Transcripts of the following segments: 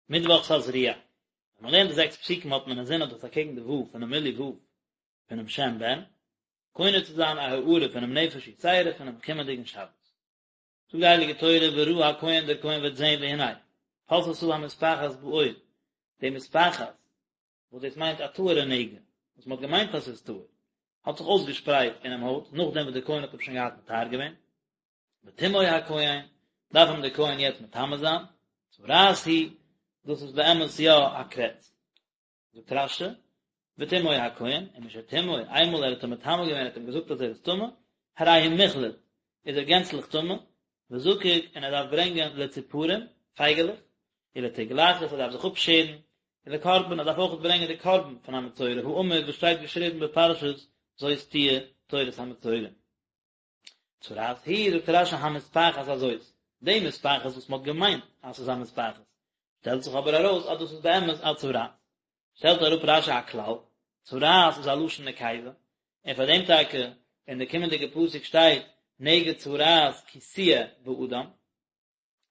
מיטוואך תזריע. ווען מען לערנט די זעקס פסוקים האט מען אינזין אז דאס אקעגן די ו' פונעם מילוי ו' פונעם שם בן, קונה צו זיין א הארה פונעם נפש יתירה פונעם קומענדיגן שבת. זאגט די הייליגע תורה וראה הכהן דער כהן וועט זען והנה פשתה המספחת בעור, די מספחת וואס דאס מיינט א טהור'ע נגע, וואס מען האט געמיינט אז ס'איז טהור, האט זיך אויסגעשפרייט אינעם הויט נאכדעם וואס דער כהן האט אים שוין געהאט מטהר געווען, וטמאו הכהן, דארף אים דער כהן יעצט מטמא זיין, צרעת היא, דאס איז באמת יא א קרעץ. זאגט רש"י, וטמאו הכהן, ומשטמאו, איינמאל ער האט אים מטמא געווען, ער האט אים געזאגט אז ער איז טמא, הרי הוא מוחלט, איז ער גענצליך טמא, וזקוק, און ער דארף ברענגען לציפורים, פייגעלעך, ולתגלחת, ער דארף זיך אפשערן, ולקרבן, ער דארף אויך ברענגען די קרבן פון א מצורע, האמור וואס שטייט געשריבן בפרשת זאת תהיה תורת המצורע. צרעת היא, זאגט רש"י המספחת הזאת, די מספחת וואס מ'האט געמיינט אז ס'איז א מספחת, שטעלט זיך אבער ארויס אז דאס איז באמת א צרעת. שטעלט אראפ רש"י א כלל, צרעת איז א לשון נקבה, און פאר דעם טאקע אין די קומענדיגע פסוק שטייט נגע צרעת כי תהיה באדם.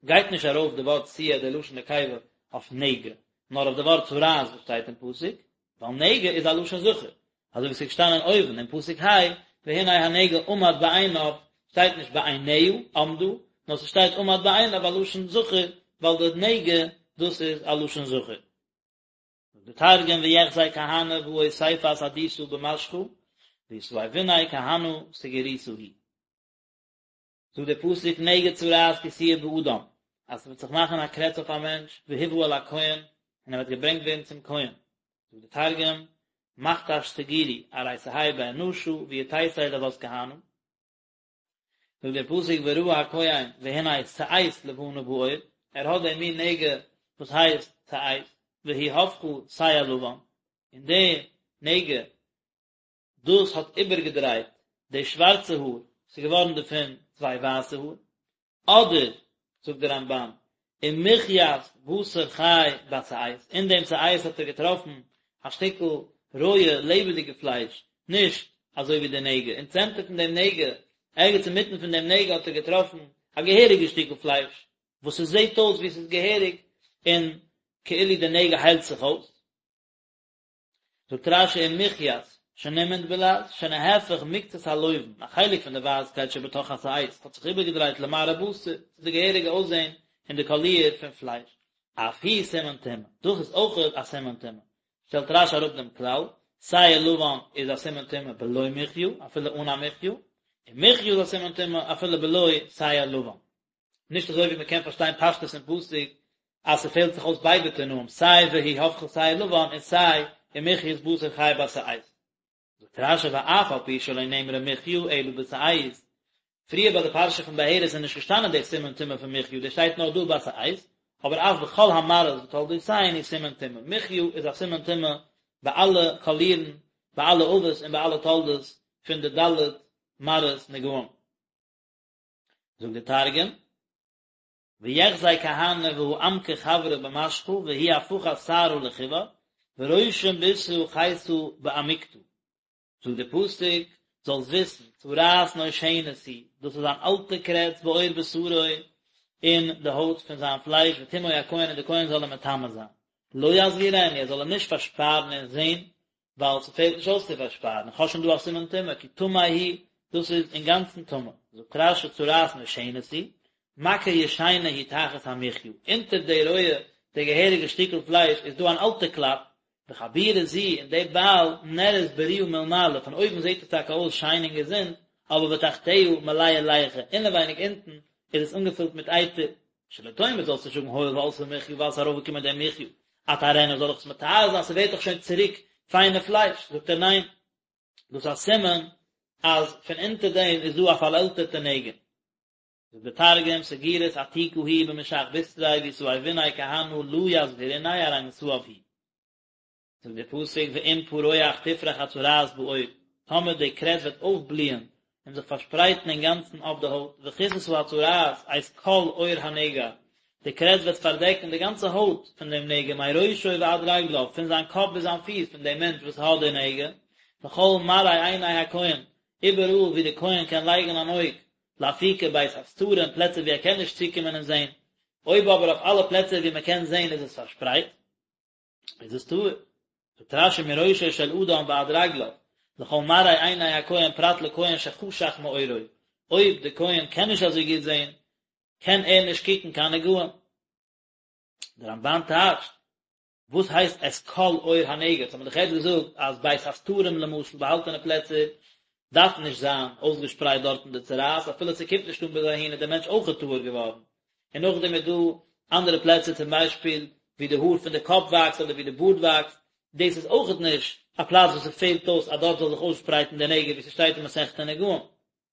גייט נישט ארויף די ווארט תהיה די לשון נקבה אויף נגע, נאר אויף די ווארט צרעת וואס שטייט אין פסוק, ווייל נגע איז א לשון זכר, אזוי ווי ס'איז געשטאנען אויבן אין פסוק ה', והנה הנגע עמד בעיניו, שטייט נישט בעיניה עמדה, נאר ס'שטייט עמד בעיניו א לשון זכר, ווייל די נגע דאס איז א לשון זכר. זאגט די תרגום ויחזי כהנא והא אוסיפת עדיתא במשחא, ויתאביניה כהנא סגירותא היא. זאגט דער פסוק נגע צרעת כי תהיה באדם, אז ס'וועט זיך מאכן א קרעץ אויף א מענטש, והובא אל הכהן, און ער וועט געברענגט ווערן צום כהן. זאגט דער תרגום, מכתש סגירו, ארי תהי באנשא ויתיתי לות כהנא. זאגט דער פסוק וראה הכהן והנה שאת לבנה בעור, ער האט דעם מין נגע וואס הייסט שאת, והיא הפכה שער לבן, און די נגע דאס האט איבערגעדרייט די שווארצע האר, ס'איז געווארן דערפון צוויי ווייסע האר, אדער, זאגט דער רמב"ן, ומחית בשר חי בשאת, אין דעם שאת האט ער געטראפן א שטיקל רויע לעבעדיגע פלייש, נישט אזוי ווי די נגע, אין צענטער פון דעם נגע, ערגעץ אינמיטן פון דעם נגע האט ער געטראפן א געהעריגע שטיקל פלייש, וואס עס זעט אויס ווי עס איז געהעריג, און כאילו די נגע היילט זיך אויס. זאגט רש"י ומחית, שנימנט בלע"ז, שנהפך מקצת הלובן, א חלק פון די ווייסקייט שבתוך השאת האט זיך איבערגעדרייט למראה בשר, צו די געהעריגע אויסזען און די קאליר פון פלייש. אף הוא סימן טומאה, דאס איז אויכעט א סימן טומאה. שטעלט רש"י אראפ דעם כלל, שער לבן איז א סימן טומאה בלא מחיה, אפילו אן א מחיה, און מחיה איז א סימן טומאה אפילו בלא שער לבן. נישט אזוי ווי מען קען פארשטיין פשטות אין פסוק אז ס'פעלט זיך אויס ביידע תנאים סיי והיא הפכה שער לבן און סיי ומחית בשר חי בשאת. זאגט רש"י ואף על פי שלא נאמרה מחיה אלא בשאת, פריער ביי די פרשה פון בהרת איז נישט געשטאנען די סימן טומאה פון מחיה דאס שטייט נאר דא בשאת, אבער אף בכל המראות ותולדותיהן הוא סימן טומאה, מחיה איז א סימן טומאה ביי אלע קאלירן, ביי אלע אבות און ביי אלע תולדות פון די ד' מראות נגעים. זאגט דער תרגום, ויחזי כהנא והא עמקא חברא במשחא והיא הפכת שערא לחיור, ורושים בישרא חיתא בעמיקתא. זאגט דער פסוק, זאלסט וויסן, צרעת נושנת היא, דאס איז אן אלטע קרעץ בעור בשרו, אין די הויט פון זיין פלייש, וטמאו הכהן און דער כהן זאל אים מטמא זיין. לא יסגירנו, ער זאל אים נישט פארשפארן און זען, ווייל ס'פעלט נישט אויס צו פארשפארן, איך האב שוין דא א סימן טומאה, כי טמא הוא, דאס איז אינגאנצן טמא. זאגט רש"י צרעת נושנת היא, מכה ישנה היא תחת המחיה, אונטער די רויע, די געהעריגע שטיקל פלייש איז דא אן אלטע קלאפ, וחבורה זו, און די בייל נראית בריאה מלמעלה, פון אויבן זעט עס טאקע אויס שיין און געזונט, אבער ותחתיה מלאה ליחה, אינעווייניג אונטן איז עס אנגעפילט מיט אייטער, שלא תאמר זאלסט נישט זאגן הואיל ועלתה מחיה ווייל ס'איז ארויפגעקומען די מחיה, אטהרנה זאל איך עס מטהר זיין ס'ווערט דאך שוין צוריק פיינע פלייש, זאגט ער ניין, דאס איז א סימן אז פון אונטער דעם איז דא א פארעלטערטע נגע. זאגט די תרגום, סגירת עתיקא היא במשך בשריה ויתאביניה כהנא לא יסגריניה ארי מתאב הוא. זאגט דער פסוק ואם פרוח תפרח הצרעת בעור, טאמער די קרעץ וועט אויפבליען און זיך פארשפרייטן אינגאנצן אויף די הויט, וכסתה הצרעת את כל עור הנגע, די קרעץ וועט פארדעקן די גאנצע הויט פון דעם נגע מראשו ועד רגליו, פון זיין קאפ ביז זיין פיס פון דעם מענטש וואס האט די נגע, לכל מראה עיני הכהן, איבעראל וואו דער כהן קען לייגן אן אויג, לאפוקי בית הסתרים, פלעצער וואו ער קען נישט צוקומען און זען. אויב אבער אויף אלע פלעצער ווי מען קען זען איז עס פארשפרייט, איז עס טהור. זאגט רש"י מראשו של אדם ועד רגליו, לכל מראה עיני הכהן פרט לכהן שחשך מעורו, אויב די כהן קען נישט אזוי גוט זען, קען ער נישט קוקן קיין נגעים. דער רמב"ן טייטשט, וואס הייסט את כל עור הנגע? האט מען דאך יעצט געזאגט אז בית הסתרים למשל, באהאלטענע פלעצער, דארף נישט זיין אויסגעשפרייט דארטן די צרעת, אפילו ס'קומט נישט אן ביז אהין איז דער מענטש אויכעט טהור געווארן. און נאכדעם איז דא אנדערע פלעצער צום ביישפיל ווי די האר פון די קאפ וואקסט אדער ווי די בארד וואקסט, דאס איז אויכעט נישט א פלאץ וואס ס'פעלט אויס אז דארט זאל זיך אויסשפרייטן די נגע ווי ס'שטייט אין מסכת נגעים.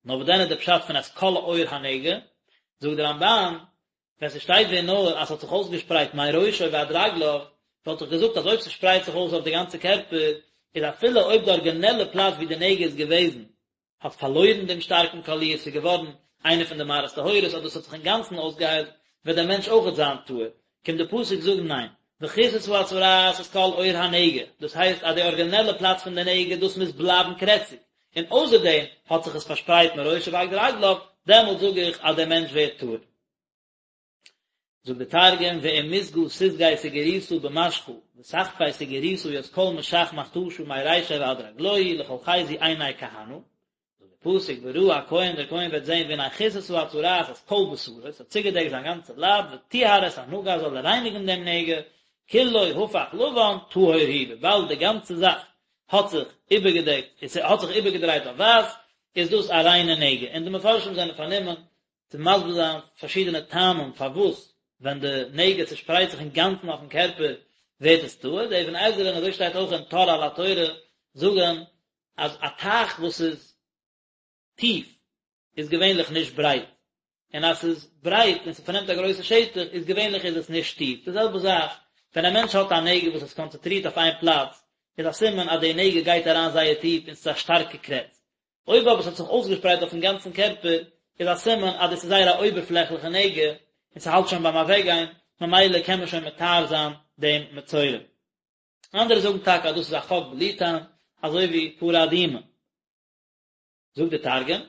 נאר וואס דען איז די פשט פון את כל עור הנגע? זאגט די רמב"ן, ווען ס'שטייט ווען נאר אז ס'האט זיך אויסגעשפרייט מראשו ועד רגליו, וואלט איך געזאגט אז אויב ס'שפרייט זיך אויס אויף די גאנצע קערפער, איז אפילו אויב די ארגינעלע פלאץ ווי די נגע איז געוועזן האט פארלוירן דעם שטארקן קאליר, ס'איז געווארן איינע פון די מראות טהורות, אדער ס'האט זיך אינגאנצן אויסגעהיילט, וועט דער מענטש אויכעט זיין טהור. קומט די פסוק זאגן ניין, וכסתה הצרעת את כל עור הנגע, דאס הייסט אז די ארגינעלע פלאץ פון די נגע דאס מוז בלייבן קרעציג, און אויסער דעם האט זיך עס פארשפרייט מראשו ועד רגליו, דעמאלט זאג איך אז דער מענטש ווערט טהור. זאגט די תרגום, ואם מסגא תסגי סגירותא במשכא, ותחפי סגירותא ית כל משך מכתשא מרישיה ועד רגלוהי לכל חיזו עיני כהנא, זאגט די פסוק וראה הכהן דער כהן וועט זען והנה כסתה הצרעת את כל בשרו, עס האט צוגעדעקט זיין גאנצע לייב, וטהר את הנגע זאל ער רייניגן דעם נגע, כולו הפך לבן טהור הוא, וויבאלד די גאנצע זאך האט זיך איבערגעדעקט, עס האט זיך איבערגעדרייט אויף ווייס, איז דאס א ריינע נגע, און די מפרשים זענען פארנומען צו מסביר זיין פארשידענע טעמים פארוואס ווען די נגע צושפרייט זיך אינגאנצן אויפן קערפער ווערט עס טהור, די אבן עזרא און אזוי שטייט אויך אין טור על התורה זאגן אז א טייך וואס איז טיף איז געווענליך נישט ברייט, און אז ס'איז ברייט און ס'פארנעמט א גרויסע שטח איז געווענליך איז עס נישט טיף, די זעלבע זאך ווען א מענטש האט א נגע וואס איז קאנצענטרירט אויף איין פלאץ איז א סימן אז די נגע גייט אריין זייער טיף און ס'איז א שטארקע קרעץ, אויב אבער ס'האט זיך אויסגעשפרייט אויפן גאנצן קערפער איז א סימן אז דאס איז זייער א אויבערפלעכליכע נגע און ס'האלט שוין ביים אוועקגיין, ממילא קען מען שוין מטהר זיין דעם מצורע. אנדערע זאגן טאקע אז דאס איז א חק בלי טעם, אזוי ווי פרה אדומה. זאגט דער תרגום,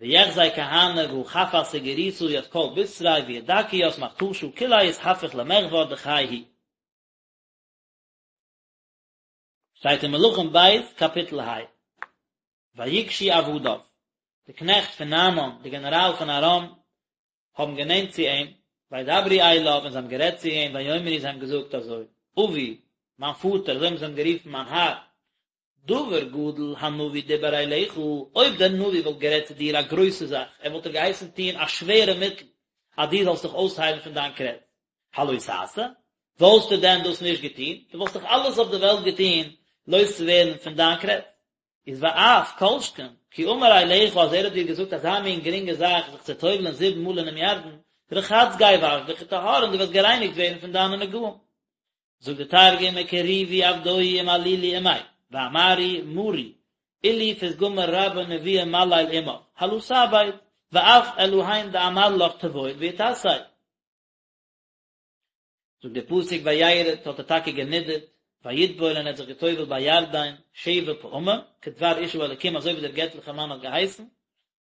ויחזי כהנא והא חפת סגירותא ית כל בתריה וידכי ית מכתשא כוליה אתהפיך למחור דכי הוא. שטייט אין מלכים ב' קאפיטל ה. ויגשו עבדיו, די קנעכט פון נעמן, די גענעראל פון ארם, האבן גענענט צו אים, וידברו אליו, און זיי האבן גערעדט צו אים, ויאמרו, זיי האבן געזאגט אזוי, אבי, מיין פאטער, אזוי האבן זיי אים גערופן, מיין האר, דבר גדול הנביא דיבר אליך, אויב דער נביא וואלט גערעדט צו דיר א גרויסע זאך, ער וואלט דיר געהייסן טון א שווערע מיטל, אז דו זאלסט דיך אויסהיילן פון דיין קרעץ, הלא תעשה? וואלסטו דען דאס נישט געטון? דו וואלסט דאך אלעס אויף די וועלט געטון לויז צו ווערן פון דיין קרעץ. איז ואף כל שכן, כי אמר אליך אז ער האט דיר געזאגט אזא מין גרינגע זאך זיך צו טובל'ען זיבן מאל אינעם ירדן, רחץ גיי וואש דיך וטהר און דו וועסט גערייניגט ווערן פון דיינע נגעים. זאגט די תרגום וקריבו עבדוהי ומלילו עמיה, ואמרו מרי, אילו פתגמא רבא נבואה מליל עמך, הלא תעביד, ואף אלהין דאמר לך טבול ואתתיה. זאגט דער פסוק וירד האט ער טאקע גענידערט, ויטבול און ער האט זיך געטובלט בירדן שבע פעמים, כדבר איש האלקים אזוי ווי דער געטליכער מאן האט געהייסן,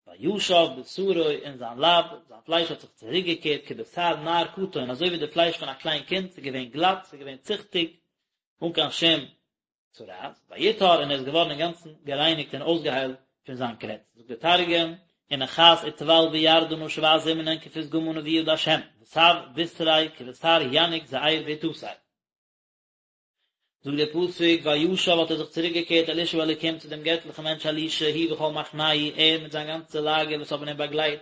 וישב בשרו און זיין לייב, זיין פלייש האט זיך צוריק געקערט כבשר נער קטן אזוי ווי די פלייש פון א קליין קינד, ס'איז געווען גלאט, ס'איז געווען ציכטיג, אן קיין שום צרעת, ויטהר און ער איז געווארן אינגאנצן גערייניגט און אויסגעהיילט פון זיין קרעץ. זאגט דער תרגום, ונחת וטבל בירדנא שבע זימנין כפתגמא נבואה דהשם, ותב בתריה כבשר ינוק זעיר ואתתיה. זאגט דער פסוק, וישב האט ער זיך צוריק געקערט אל איש האלוקים צו דעם געטליכן מענטש אלישע, הוא וכל מחנהו, ער מיט זיין גאנצע לאגער וואס האבן אים באגלייט,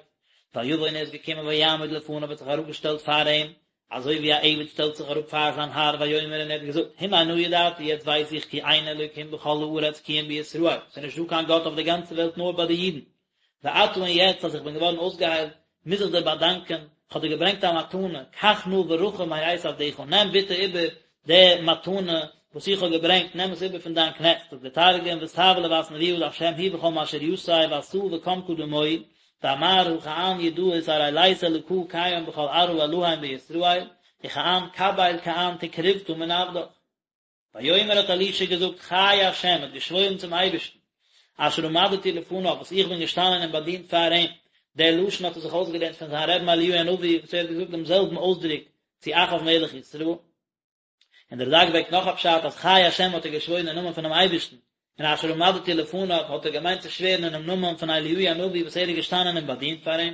ויבא און ער איז געקומען ויעמוד לפניו האט זיך אראפגעשטעלט פאר אים, אזוי ווי א עבד שטעלט זיך אראפ פאר זיין האר, ויאמר און ער האט געזאגט, הנה נא ידעתי, יעצט ווייס איך כי אין אלוקים בכל הארץ כי אם בישראל, ס'איז נישט דא קיין גאט אויף דער גאנצער וועלט נאר ביי די אידן. ועתה און יעצט אז איך בין געווארן אויסגעהיילט, מוז איך דיר באדאנקען, איך האב דיר געברענגט א מתנה, קח נא ברכה מאת עבדך, נעם ביטע איבער די מתנה וואס איך האב געברענגט, נעם עס איבער פון דיין קנעכט, זאגט דער תרגום, ותב לבת נבואה דהשם הוא וכל משריתיה ואתא וקם קדמוהי, ואמר הא כען ידעית ארי לית אלקא קיים בכל ארעא אלהין בישראל, וכען קביל כען תקרובתא מן עבדך. ויאמר האט אלישע געזאגט חי ה' האט געשוואוירן צום אייבערשטן, אשר עמדתי לפניו וואס איך בין געשטאנען און באדינט פאר אים, דער לשון האט ער זיך אויסגעלערנט פון זיין רבי'ן אליהו הנביא וואס ער האט געזאגט דעם זעלבן אויסדרוק צו אחאב מלך ישראל. און דער רד"ק ברענגט נאך א פשט אז חי השם האט ער געשוואוירן אין נאמען פונעם אייבערשטן, און אשר עמדתי לפניו האט ער געמיינט צו שווערן אינעם נאמען פון אליהו הנביא וואס ער איז געשטאנען און באדינט פאר אים,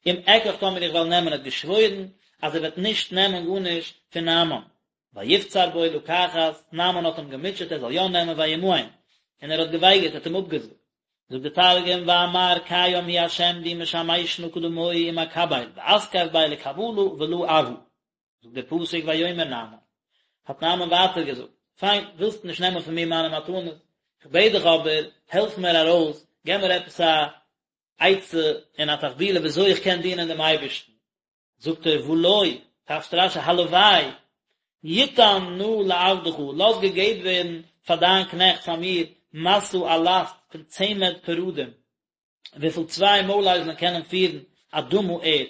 אם אקח טאמער איך וועל נעמען ער האט געשוואוירן אז ער וועט נישט נעמען גארנישט פון נעמן. ויפצר בו לקחת, נעמן האט אים געמוטשעט ער זאל יא נעמען וימאן, און ער האט געווייגערט, ער האט אים אפגעזאגט. זאגט דער תרגום ואמר קיים הוא השם די משמשנא קדמוהי ומקבל ואתכף ביה לקבלא ולא אבא. זאגט דער פסוק ויאמר נעמן, האט נעמן ווייטער געזאגט, פיין, ווילסט נישט נעמען פון מיר מיינע מתנות, איך בעט דיך אבער, העלף מיר ארויס, געב מיר עפעס א עצה און א תחבולה ווי אזוי איך קען דינען דעם אייבערשטן. זאגט ער, ולא, טייטשט רש"י, הלוואי, יותן נא לעבדך, לאז געגעבן ווערן פאר דיין קנעכט, פאר מיר, משא א לאסט פון צמד פרדים, וויפיל צוויי מוילאייזלען קענען פירן אדמה ערד,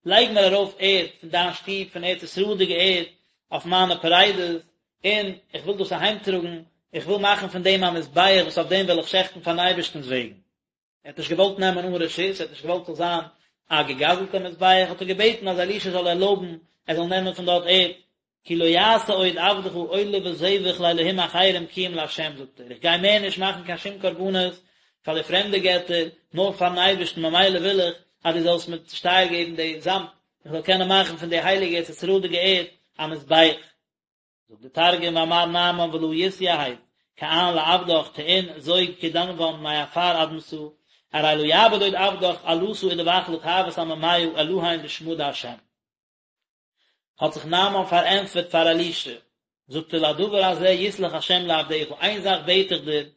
לייג מיר ארויף ערד פון דיין שטוב פון ארץ ישראל'דיגע ערד אויף מיינע פרדות, און איך וויל דאס אהיימטראגן, איך וויל מאכן פון דעם א מזבח וואס אויף דעם וועל איך שעכטן פארן אייבערשטנ'ס וועגן. ער האט נישט געוואלט נעמען אן רשות, ער האט נישט געוואלט ס'זאל זיין א געגזל'טע מזבח, האט ער געבעטן אז אלישע זאל ערלויבן ער זאל נעמען פון דארט ערד, כי לא יעשה עוד עבדך עולה וזבח לאלהים אחרים כי אם לה' זאגט ער, איך גיי מער נישט מאכן קיין שום קרבנות פאר די פרעמדע געטער, נאר פארן אייבערשטן, ממילא וויל איך אז דו זאלסט מיר צושטייער געבן די זאמד, איך זאל קענען מאכן פון די הייליגע ארץ ישראל'דיגע ערד א מזבח. זאגט די תרגום ואמר נעמן ולא יתיהב כען לעבדך טעין זוג כדנוון מעפר אדמתא ארי לא יעביד עוד עבדך עלתא ודבח לטעות עממיא אלהין בשמא דה'. האט זיך נעמן פארענטפערט פאר אלישע, זאגט ער לדבר הזה יסלח השם לעבדך, איין זאך בעט איך דיר,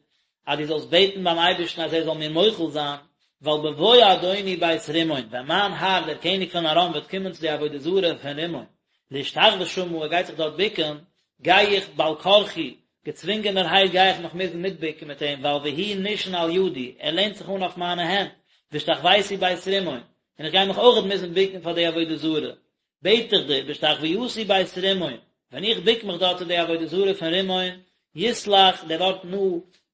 אז דו זאלסט בעטן ביים אייבערשטן אז ער זאל מיר מוחל זיין, ווייל בבוא אדוני בית רימון, ווען מיין האר דער קעניג פון ארם וועט קומען צו די עבודה זרה פון רימון, להשתחוות שמה, ער גייט זיך דארט בוקן, גיי איך בעל כרחי, געצווינגענערהייט גיי איך מיך מוזן מיטבוקן מיט אים, ווייל והוא נשען על ידי, ער לענט זיך אן אויף מיינע הענט, והשתחוויתי בית רימון, און איך גיי מיך אויכעט מוזן בוקן פאר די עבודה זרה, בעט איך דיר, בהשתחוויתי בית רימון, ווען איך בוק מיך דארט צו די עבודה זרה פון רימון, יסלח, דער ווארט נא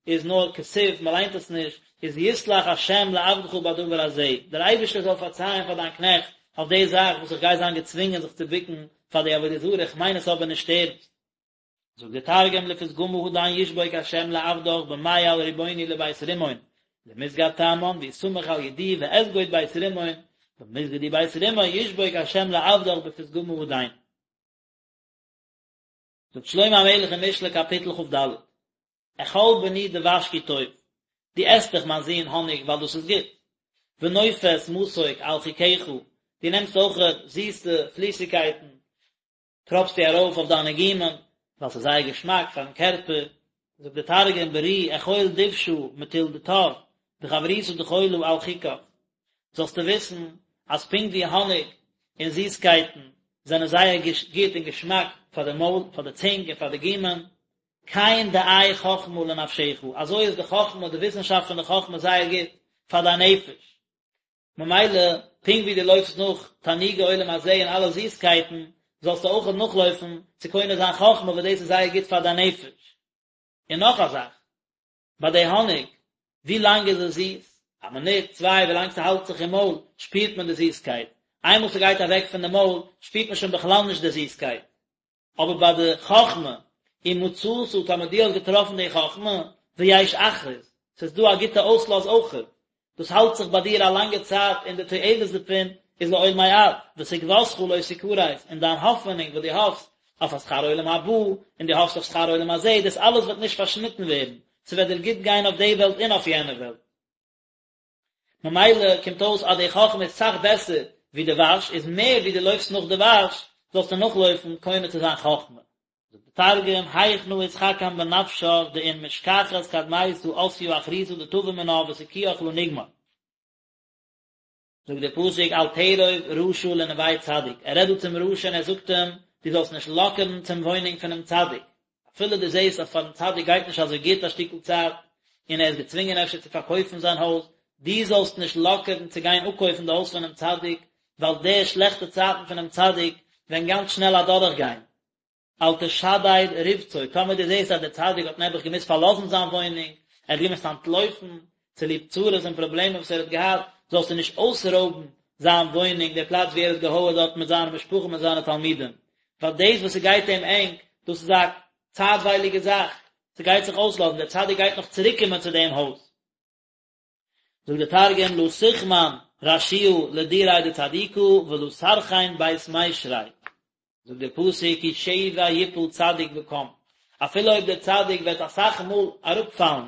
איז נאר כתיב, מען ליינט עס נישט, איז יסלח השם לעבדך בדבר הזה, דער אייבערשטער זאל פארצייען פאר דיין קנעכט אויף די זאך וואס איך גיי זיין געצווינגען זיך צו בוקן פאר די עבודה זרה, איך מיין עס אבער נישט ערנסט. זאגט דער תרגום לפתגמא הדין ישבוק השם לעבדך במעיל רבוני לבית רימון למסגד תמן ויסמך על ידי ואסגוד בית רימון במסגדי בית רימון ישבוק השם לעבדך בפתגמא הדין. זאגט שלמה המלך אין משלי קאפיטל כ"ד, אכול בני דבש כי טוב, דו עסט דאך מיין זון האניג ווייל דאס איז גוט, ונופת מתוק על חכך, דו נעמסט אויך זיסע פליסיגקייטן טראפסטו ארויף אויף דיינע גומען, ווייל ס'איז זייער געשמאק פארן קערפער, זאגט דער תרגום ברי אכול דבשא מטול דטב, וחברותא דחלא על חכך, זאלסטו וויסן אז פונקט ווי האניג און זיסקייטן זענען זייער גוט און געשמאק פאר די מויל, פאר די צונג און פאר די גומען, כן דעה חכמה לנפשך, אזוי איז די חכמה, די וויסנשאפט פון די חכמה זייער גוט פאר דיין נפש. ממילא, פונקט ווי דו לויפסט נאך תענוגי עולם הזה און אלע זיסקייטן, זאלסטו אויך נאכלויפן צו קונה זיין חכמה וואס דאס איז זייער גוט פאר דיין נפש. און נאך א זאך, ביי די האניג, ווי לאנג איז עס זיס? א מינוט, צוויי, ווי לאנג ס'האלט זיך אין מויל, שפירט מען די זיסקייט. איינמאל ס'גייט אוועק פון די מויל, שפירט מען שוין בכלל נישט די זיסקייט. אבער ביי די חכמה, אם מצאת, טאמער דו האסט געטראפן די חכמה, ויש אחרית, ס'איז דא א גוטע אויסלאז אויכעט, דאס האלט זיך ביי דיר א לאנגע צייט און די תועלת דערפון איז לעולמי עד, ותקוותך לא תכרת, און דיין האפענונג וואס דו האפסט אויף א שכר עולם הבא, און דו האפסט אויף שכר עולם הזה, דאס אלעס וועט נישט פארשניטן ווערן, ס'וועט דיר גוט גיין אויף די וועלט און אויף יענע וועלט. ממילא קומט אויס אז די חכמה איז סאך בעסער ווי דבש, איז מער ווי דו לויפסט נאך דבש, זאלסטו נאכלויפן קונה צו זיין חכמה. זאגט די תרגום, היכנא אתחכם בנפשך דאין משכחת קדמיתא אתיא אחריתא דטבא מינה ותקויך לא נגמר. זאגט דער פסוק אל תרוב רשע לנוה צדיק, ער רעדט דא צום רשע און ער זאגט אים, דו זאלסט נישט לאקערן צום וואוינונג פונעם צדיק, אפילו דו זעסט אז פארן צדיק גייט נישט אזוי גוט א שטיקל צייט, און ער איז געצווינגען אפשר צו פארקויפן זיין הויז, דו זאלסט נישט לאקערן צו גיין אפקויפן די הויז פונעם צדיק, ווייל די שלעכטע צייטן פונעם צדיק וועלן גאנץ שנעל אדורכגיין. אל תשדד רבצו, טאמער דו זעסט אז דער צדיק האט נעבעך געמוזט פארלאזן זיין וואוינונג, ער האט געמוזט אנטלויפן, צוליב צרות און פראבלעמען וואס ער האט געהאט, זאלסטו נישט אויסרויבן זיין וואוינונג, דער פלאץ וואו ער האט געהויערט דארט מיט זיינע משפחה מיט זיינע תלמידים, ווייל דאס וואס ס'גייט אים ענג, דאס איז א צייטווייליגע זאך, ס'גייט זיך אויסלאזן, דער צדיק גייט נאך צוריקקומען צו דעם הויז. זאגט דער תרגום לא תחמן רשיעא לדיריה דצדיקא ולא סרחין בית מישריה, זאגט דער פסוק כי שבע יפול צדיק וקם, אפילו אויב דער צדיק וועט אסאך מאל אראפפאלן,